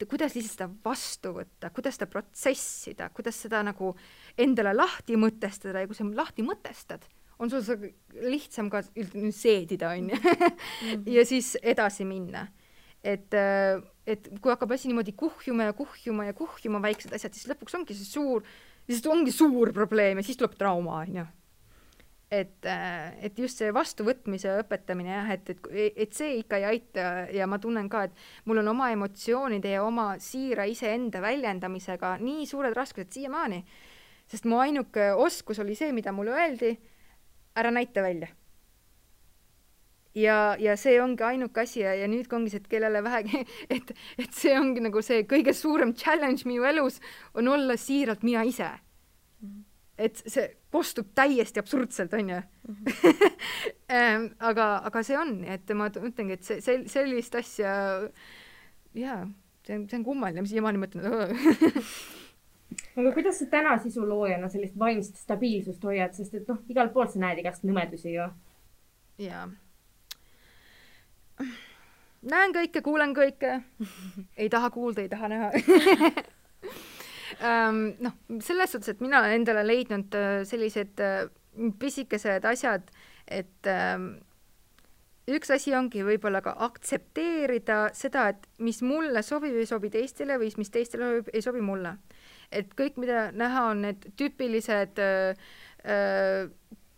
kuidas lihtsalt seda vastu võtta, kuidas seda protsessida, kuidas seda nagu endale lahti mõtestada ja kui sa lahti mõtestad, on sul lihtsam ka seedida, on ja siis edasi minna. Et kui hakkab asi niimoodi kuhjuma väiksed asjad, siis lõpuks ongi see suur probleem ja siis tuleb trauma, on ju. Et just see vastuvõtmise õpetamine, jah, et see ikka ei aita ja ma tunnen ka, et mul on oma emotsioonide ja oma siira iseenda väljendamisega nii suured raskused siiamaani, sest mu ainuke oskus oli see, mida mulle öeldi, ära näita välja. Ja see ongi ainuke asi ja nüüd ongi see, et kellele vähegi, et see ongi nagu see kõige suurem challenge minu elus on olla siiralt mina ise. et see kostub täiesti absurdselt, on ju. aga see on, et ma mõtlengi, et sellist asja, jaa, see on kummaline, mis siiamaani mõtlen. Aga kuidas sa täna sisuloojana sellist vaimset stabiilsust hoiad, sest et igal pool sa näed igast nõmedusi ju. Jaa. Näen kõike, kuulen kõike. Ei taha kuulda, ei taha näha. Selles suhtes, et mina olen endale leidnud sellised pisikesed asjad, et üks asi ongi võib-olla ka aktsepteerida seda, et mis mulle sobib, ei sobi teistele või mis teistele ei sobi mulle. Et kõik, mida näha, on need tüüpilised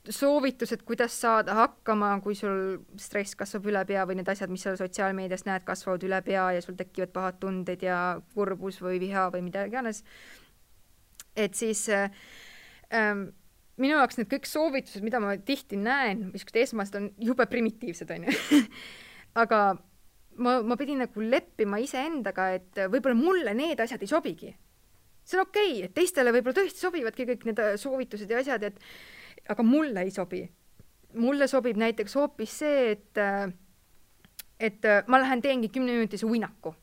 soovitused, kuidas saada hakkama, kui sul stress kasvab üle pea või need asjad, mis sa sotsiaalmeedias näed, kasvavad üle pea ja sul tekivad pahad tunded ja kurbus või viha või mida iganes. Et siis minu jaoks need kõik soovitused, mida ma tihti näen, mis esmast on jube primitiivsed, on ju. Aga ma pidin nagu leppima iseendaga, et võib-olla mulle need asjad ei sobigi. See on okei, et teistele võib-olla tõesti sobivadki kõik need soovitused ja asjad, aga mulle ei sobi. Mulle sobib näiteks hoopis see, et ma lähen teengi 10-minutise uinaku.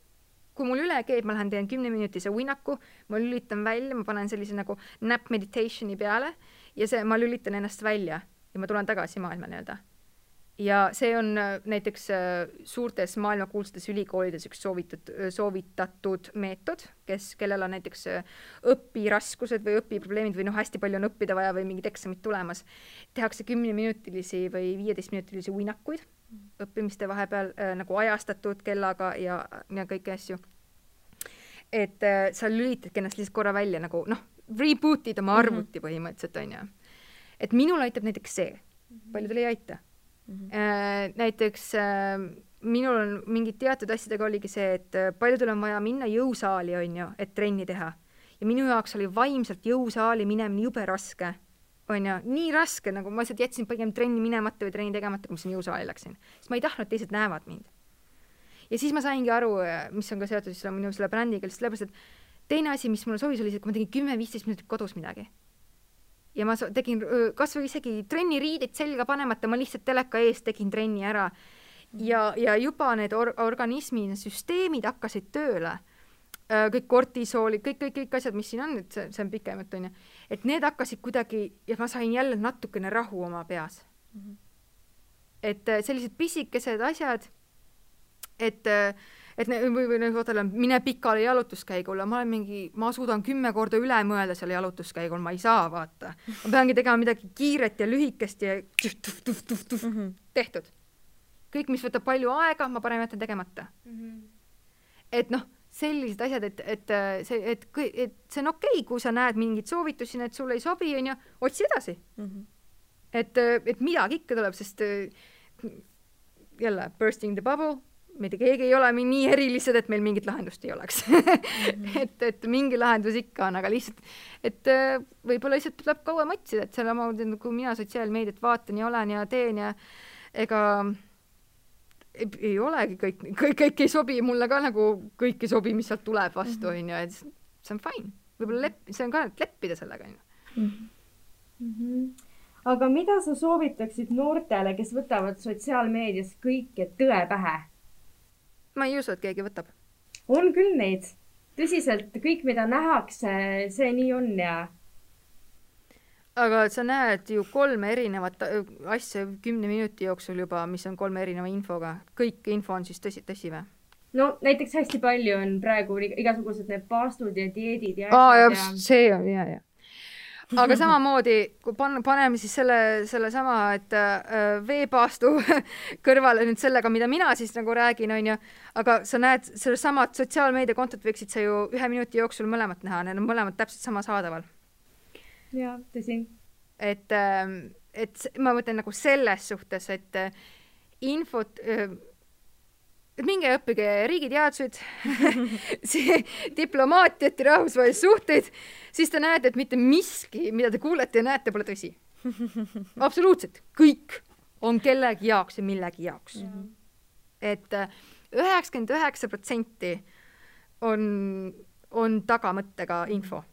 Kui mul üle keeb, ma lähen teen 10-minutise uinaku, ma lülitan välja, ma panen sellise nagu nap meditationi peale ja ma lülitan ennast välja ja ma tulen tagasi maailma nii-öelda. Ja see on näiteks suurtes maailmakuulsates ülikoolides üks soovitatud meetod, kellel on näiteks õpiraskused või õpiprobleemid või hästi palju on õppida vaja või mingid eksamid tulemas. Tehakse 10-minutilisi või 15-minutilisi uinakuid õppimiste vahepeal nagu ajastatud kellaga ja kõiki asju. Et sa lülitadki ennast lihtsalt korra välja nagu rebootid oma arvuti põhimõtteliselt, on ju. Et minul aitab näiteks see. Paljudel ei aita. Näiteks minul on mingid teatud asjadega oligi see, et paljudel on vaja minna jõusaali, on ju, et trenni teha. Ja minu jaoks oli vaimselt jõusaali minemine jube raske. On ju, nii raske, nagu ma jätsin pigem trenni minemata või trenni tegemata, kui ma siin jõusaali läksin. Sest ma ei tahtnud, et teised näevad mind. Ja siis ma saingi aru, mis on ka seotud minu selle brändiga, sellepärast, et teine asi, mis mulle sobis, oli see, kui ma tegin 10-15 minutit kodus midagi. Ja ma tegin kas või isegi trenniriidid selga panemata, ma lihtsalt teleka ees tegin trenni ära. Ja juba need organismi süsteemid hakkasid tööle. Kõik kortisoolid, kõik asjad, mis siin on, et see on pikemat, on ju. Et need hakkasid kuidagi, ja ma sain jälle natukene rahu oma peas. Et sellised pisikesed asjad, et mine pikale jalutuskäigule, ma suudan 10 korda üle mõelda selle jalutuskäigul, ma ei saa vaata. Ma peangi tegema midagi kiiret ja lühikest ja tehtud. Kõik, mis võtab palju aega, ma parem jätan tegemata. Et sellised asjad, et see on okei, kui sa näed mingid soovitusi, et sulle ei sobi, on ju, otsi edasi. Et midagi ikka tuleb, sest jälle, bursting the bubble, mitte keegi ei ole nii erilised, et meil mingit lahendust ei oleks. et mingi lahendus ikka on, aga lihtsalt, et võib-olla lihtsalt tuleb kauem otsida, et selle kui mina sotsiaalmeediat vaatan ja olen ja teen ja ega ei olegi kõik ei sobi, mulle ka nagu kõik ei sobi, mis sealt tuleb vastu, on ju, et see on fine. Võib-olla see on ka, et leppida sellega, on ju. Aga mida sa soovitaksid noortele, kes võtavad sotsiaalmeedias kõike tõe pähe? Ma ei usu, et keegi võtab. On küll neid. Tõsiselt, kõik, mida nähakse, see nii on ja... Aga sa näed ju 3 erinevat asja 10 minuti jooksul juba, mis on 3 erineva infoga. Kõik info on siis tõsi või? No näiteks hästi palju on praegu igasugused need paastud ja dieedid ja... see on, ja. Aga samamoodi, kui paneme siis selle sama, et veepaastu kõrvale nüüd sellega, mida mina siis nagu räägin, on ju, aga sa näed selle samad sotsiaalmeediakontot võiksid sa ju 1 minuti jooksul mõlemat näha, need on mõlemad täpselt sama saadaval. Ja, tõsi. Et ma mõtlen nagu selles suhtes, et infot... minge õppige riigiteadused, diplomaatiat ja rahvusvahelisi suhteid, siis te näete, et mitte miski, mida te kuulete ja näete, pole tõsi. Absoluutselt. Kõik on kellegi jaoks ja millegi jaoks. Et 99% on tagamõttega info.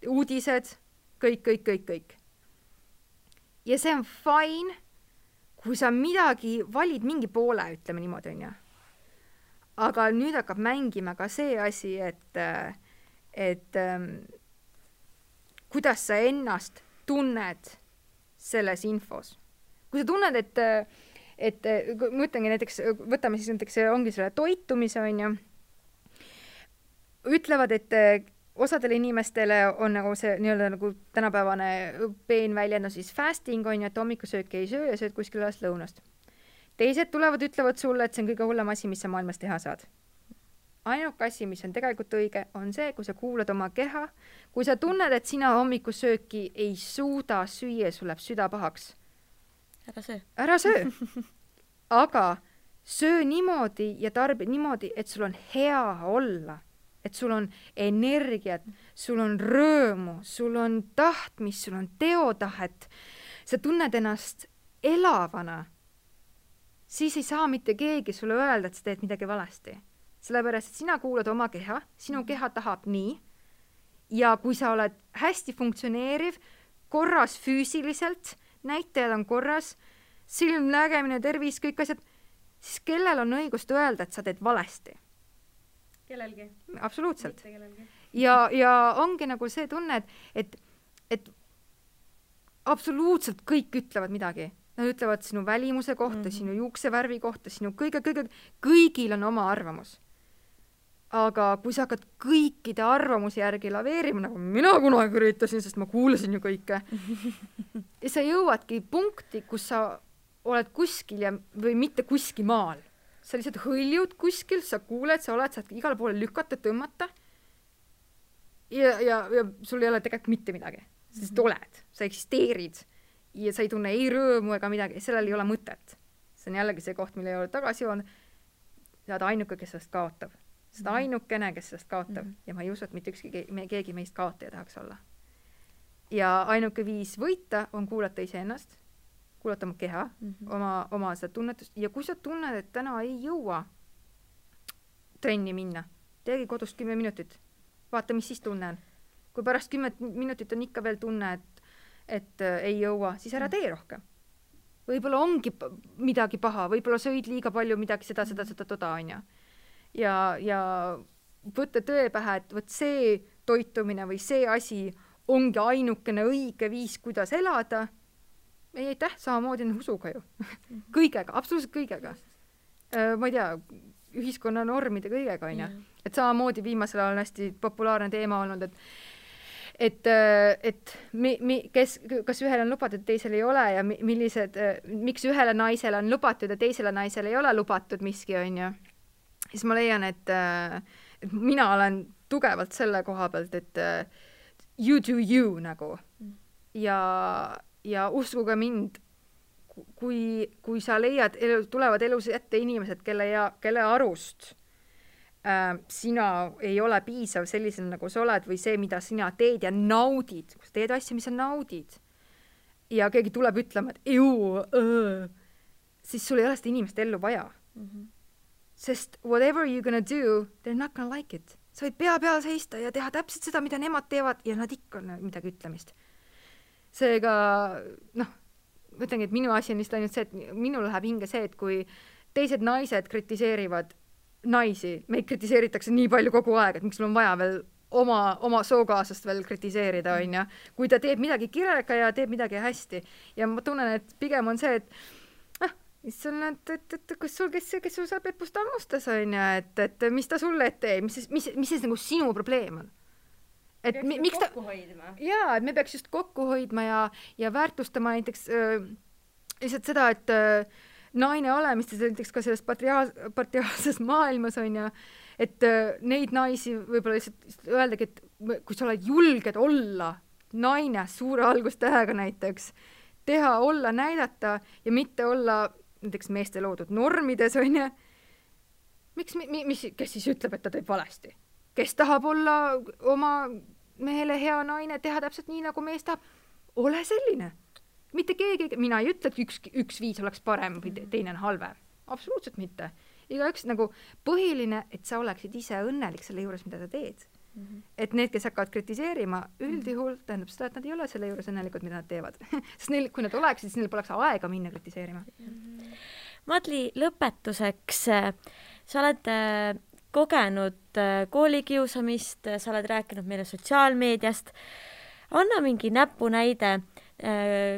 Uudised, kõik. Ja see on fine, kui sa midagi valid mingi poole, ütleme niimoodi, on ju. Aga nüüd hakkab mängima ka see asi, et kuidas sa ennast tunned selles infos. Kui sa tunned, et mõtlengi näiteks, võtame siis näiteks, ongi selle toitumise, on ju, ütlevad, et osadele inimestele on nagu see nii-öelda nagu tänapäevane peenväljend, siis fasting on ju, et hommikusööki ei söö ja sööd kuskil alles lõunast. Teised tulevad, ütlevad sulle, et see on kõige hullem asi, mis sa maailmas teha saad. Ainuke asi, mis on tegelikult õige, on see, kui sa kuulad oma keha, kui sa tunned, et sina hommikusööki ei suuda süüa, sul läheb süda pahaks. Ära söö. Aga söö niimoodi ja tarbi niimoodi, et sul on hea olla. Et sul on energiat, sul on rõõmu, sul on tahtmist, sul on teotahet. Sa tunned ennast elavana. Siis ei saa mitte keegi sulle öelda, et sa teed midagi valesti. Sellepärast, et sina kuulad oma keha, sinu keha tahab nii. Ja kui sa oled hästi funktsioneeriv, korras füüsiliselt, näitajad on korras, silm, nägemine, tervis, kõik asjad, siis kellel on õigust öelda, et sa teed valesti? Kellelgi. Absoluutselt. Ja ongi nagu see tunne, et absoluutselt kõik ütlevad midagi. Nad ütlevad sinu välimuse kohta, sinu juuksevärvi kohta, sinu kõigil on oma arvamus. Aga kui sa hakkad kõikide arvamusi järgi laveerima, nagu mina kunagi üritasin, sest ma kuulasin ju kõike, ja sa jõuadki punkti, kus sa oled kuskil või mitte kuskil maal. Sa lihtsalt hõljud kuskil, sa kuuled, sa oled, saad igale poole lükata, tõmmata ja sul ei ole tegelikult mitte midagi. Sest oled, sa eksisteerid ja sa ei tunne ei rõõmu ega midagi, sellel ei ole mõtet. See on jällegi see koht, mille ei ole tagasi joonud. Sa oled ainuke, kes sellest kaotab. Sa oled ainukene, kes sellest kaotab. Ja ma ei usu, et mitte keegi meist kaotaja tahaks olla. Ja ainuke viis võita on kuulata iseennast, kuulata oma keha, oma seda tunnetust. Ja kui sa tunned, et täna ei jõua trenni minna, teegi kodust 10 minutit. Vaata, mis siis tunne on. Kui pärast 10 minutit on ikka veel tunne, et ei jõua, siis ära tee rohkem. Võib-olla ongi midagi paha, võib-olla sõid liiga palju midagi seda, on ju. Ja võtta tõe pähe, et võt see toitumine või see asi ongi ainukene õige viis, kuidas elada. Ei, samamoodi on usuga ju. Kõigega, absoluutselt kõigega. Ma ei tea, ühiskonna normide kõigega, on ju. Et samamoodi viimasel ajal on hästi populaarne teema olnud, kas ühel on lubatud, teisel ei ole ja miks ühele naisele on lubatud ja teisele naisele ei ole lubatud miski, on ju. Siis ma leian, et mina olen tugevalt selle koha pealt, et you do you nagu. Ja uskuge mind, kui sa leiad, tulevad elus ette inimesed, kelle arust sina ei ole piisav sellisel, nagu sa oled, või see, mida sina teed ja naudid, kui sa teed asja, mis sa naudid, ja keegi tuleb ütlema, et siis sul ei ole seda inimest ellu vaja. Sest whatever you're gonna do, they're not gonna like it. Sa võid pea peal seista ja teha täpselt seda, mida nemad teevad, ja nad ikka on midagi ütlemist. Seega, mõtlengi, et minu asi on lihtsalt ainult see, et minul läheb hinge see, et kui teised naised kritiseerivad naisi, meid kritiseeritakse nii palju kogu aeg, et miks sul on vaja veel oma sookaasast veel kritiseerida, on ju. Kui ta teeb midagi kirega ja teeb midagi hästi. Ja ma tunnen, et pigem on see, et kas sul saab Peppust ammustas, on ju, et mis ta sulle teeb, mis see nagu sinu probleem on? Et miks ta... Jaa, et me peaks just kokku hoidma ja väärtustama näiteks lihtsalt seda, et naine olemist, näiteks ka selles patriaalses maailmas on ja, et neid naisi võib-olla lihtsalt öeldagi, et kui sa oled julged olla naine suure algustähega näiteks, teha, olla, näidata ja mitte olla näiteks meeste loodud normides, on ja, kes siis ütleb, et ta teeb valesti? Kes tahab olla oma mehele hea naine, teha täpselt nii, nagu mees tahab? Ole selline. Mitte keegi, mina ei ütle, et üks viis oleks parem või teine on halvem. Absoluutselt mitte. Igaüks nagu põhiline, et sa oleksid ise õnnelik selle juures, mida sa teed. Et need, kes hakkavad kritiseerima, üldjuhul tähendab seda, et nad ei ole selle juures õnnelikud, mida nad teevad. Sest neil, kui nad oleksid, siis neil poleks aega minna kritiseerima. Madli, lõpetuseks, sa oled kogenud koolikiusamist, sa oled rääkinud meile sotsiaalmeediast. Anna mingi näpunäide,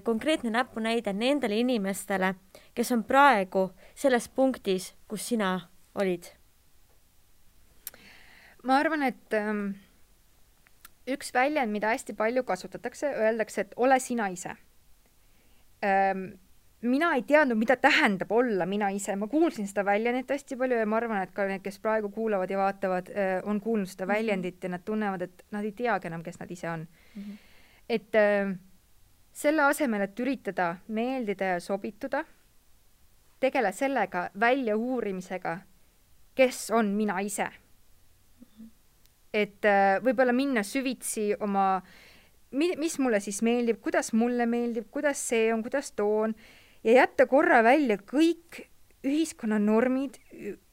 konkreetne näpunäide nendele inimestele, kes on praegu selles punktis, kus sina olid. Ma arvan, et üks väljend, mida hästi palju kasutatakse, öeldakse, et ole sina ise. Mina ei teadnud, mida tähendab olla mina ise. Ma kuulsin seda väljendit hästi palju ja ma arvan, et ka need, kes praegu kuulavad ja vaatavad, on kuulnud seda väljendit ja nad tunnevad, et nad ei teagi enam, kes nad ise on. Et selle asemel, et üritada meeldida ja sobituda, tegele sellega välja uurimisega, kes on mina ise. Et võib-olla minna süvitsi oma, mis mulle siis meeldib, kuidas mulle meeldib, kuidas see on, kuidas too on, ja jätta korra välja kõik ühiskonna normid,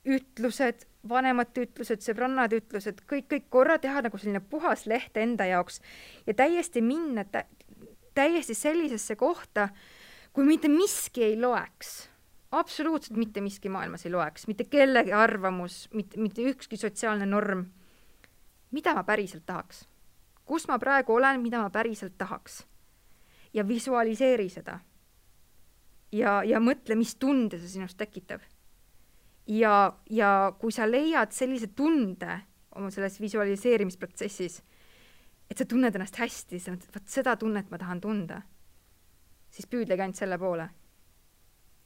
ütlused, vanemate ütlused, sõbrannad ütlused, kõik korra teha nagu selline puhas leht enda jaoks ja täiesti minna täiesti sellisesse kohta, kui mitte miski ei loeks. Absoluutselt mitte miski maailmas ei loeks, mitte kellegi arvamus, mitte ükski sotsiaalne norm. Mida ma päriselt tahaks? Kus ma praegu olen, mida ma päriselt tahaks? Ja visualiseeri seda. Ja mõtle, mis tunde see sinust tekitab. Ja kui sa leiad sellise tunde oma selles visualiseerimisprotsessis, et sa tunned ennast hästi, seda tunnet ma tahan tunda, siis püüdlegi ainult selle poole.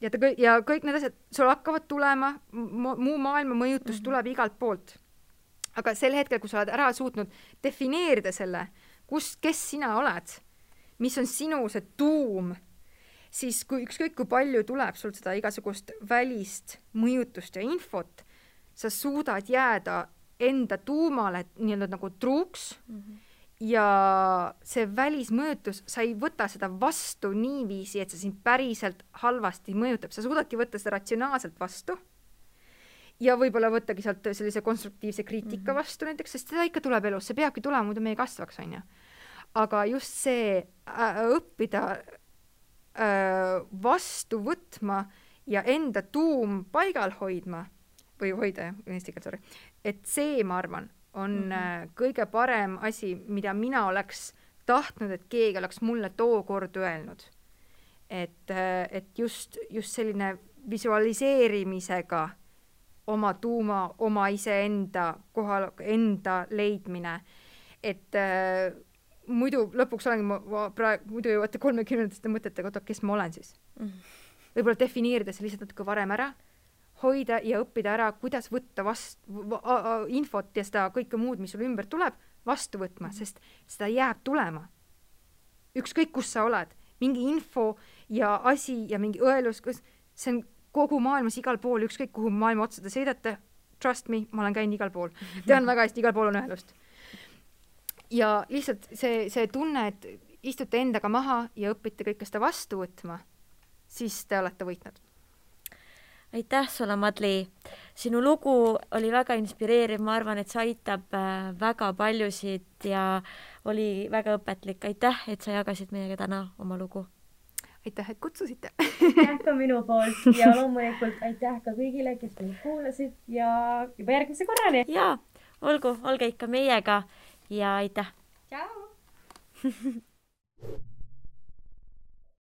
Ja kõik need asjad, sul hakkavad tulema, muu maailma mõjutus tuleb igalt poolt. Aga sel hetkel, kui sa oled ära suutnud defineerida selle, kes sina oled, mis on sinu see tuum, siis ükskõik kui palju tuleb sul seda igasugust välist mõjutust ja infot, sa suudad jääda enda tuumale nii-öelda nagu truuks ja see välismõjutus, sa ei võta seda vastu niiviisi, et see sind päriselt halvasti mõjutab. Sa suudadki võtta seda ratsionaalselt vastu ja võib-olla võttagi sealt sellise konstruktiivse kriitika vastu näiteks, sest seda ikka tuleb elus, see peabki tulema, muidu meie kasvaks, on ju. Aga just see õppida vastu võtma ja enda tuum paigal hoidma, või hoida, eesti keel, sorry, et see, ma arvan, on kõige parem asi, mida mina oleks tahtnud, et keegi oleks mulle tookord öelnud. Et just selline visualiseerimisega oma tuuma, oma iseenda kohal, enda leidmine. Et muidu lõpuks olengi muidu jõuate 30 mõtetega, kes ma olen siis. Võib-olla defineerida see lihtsalt natuke varem ära, hoida ja õppida ära, kuidas võtta infot ja seda kõike muud, mis sul ümber tuleb, vastu võtma, sest seda jääb tulema. Ükskõik, kus sa oled. Mingi info ja asi ja mingi õelus, see on kogu maailmas igal pool, ükskõik kuhu maailma otsada sõidate, trust me, ma olen käinud igal pool. Tean väga hästi, igal pool on õelust. Ja lihtsalt see tunne, et istute endaga maha ja õpite kõike seda vastu võtma, siis te olete võitnud. Aitäh sulle, Madli. Sinu lugu oli väga inspireeriv, ma arvan, et see aitab väga paljusid ja oli väga õpetlik. Aitäh, et sa jagasid meiega täna oma lugu. Aitäh, et kutsusite. Aitäh ka minu poolt ja loomulikult aitäh ka kõigile, kes meid kuulasid ja juba järgmise korrani. Ja, olge ikka meiega ja aitäh. Ciao!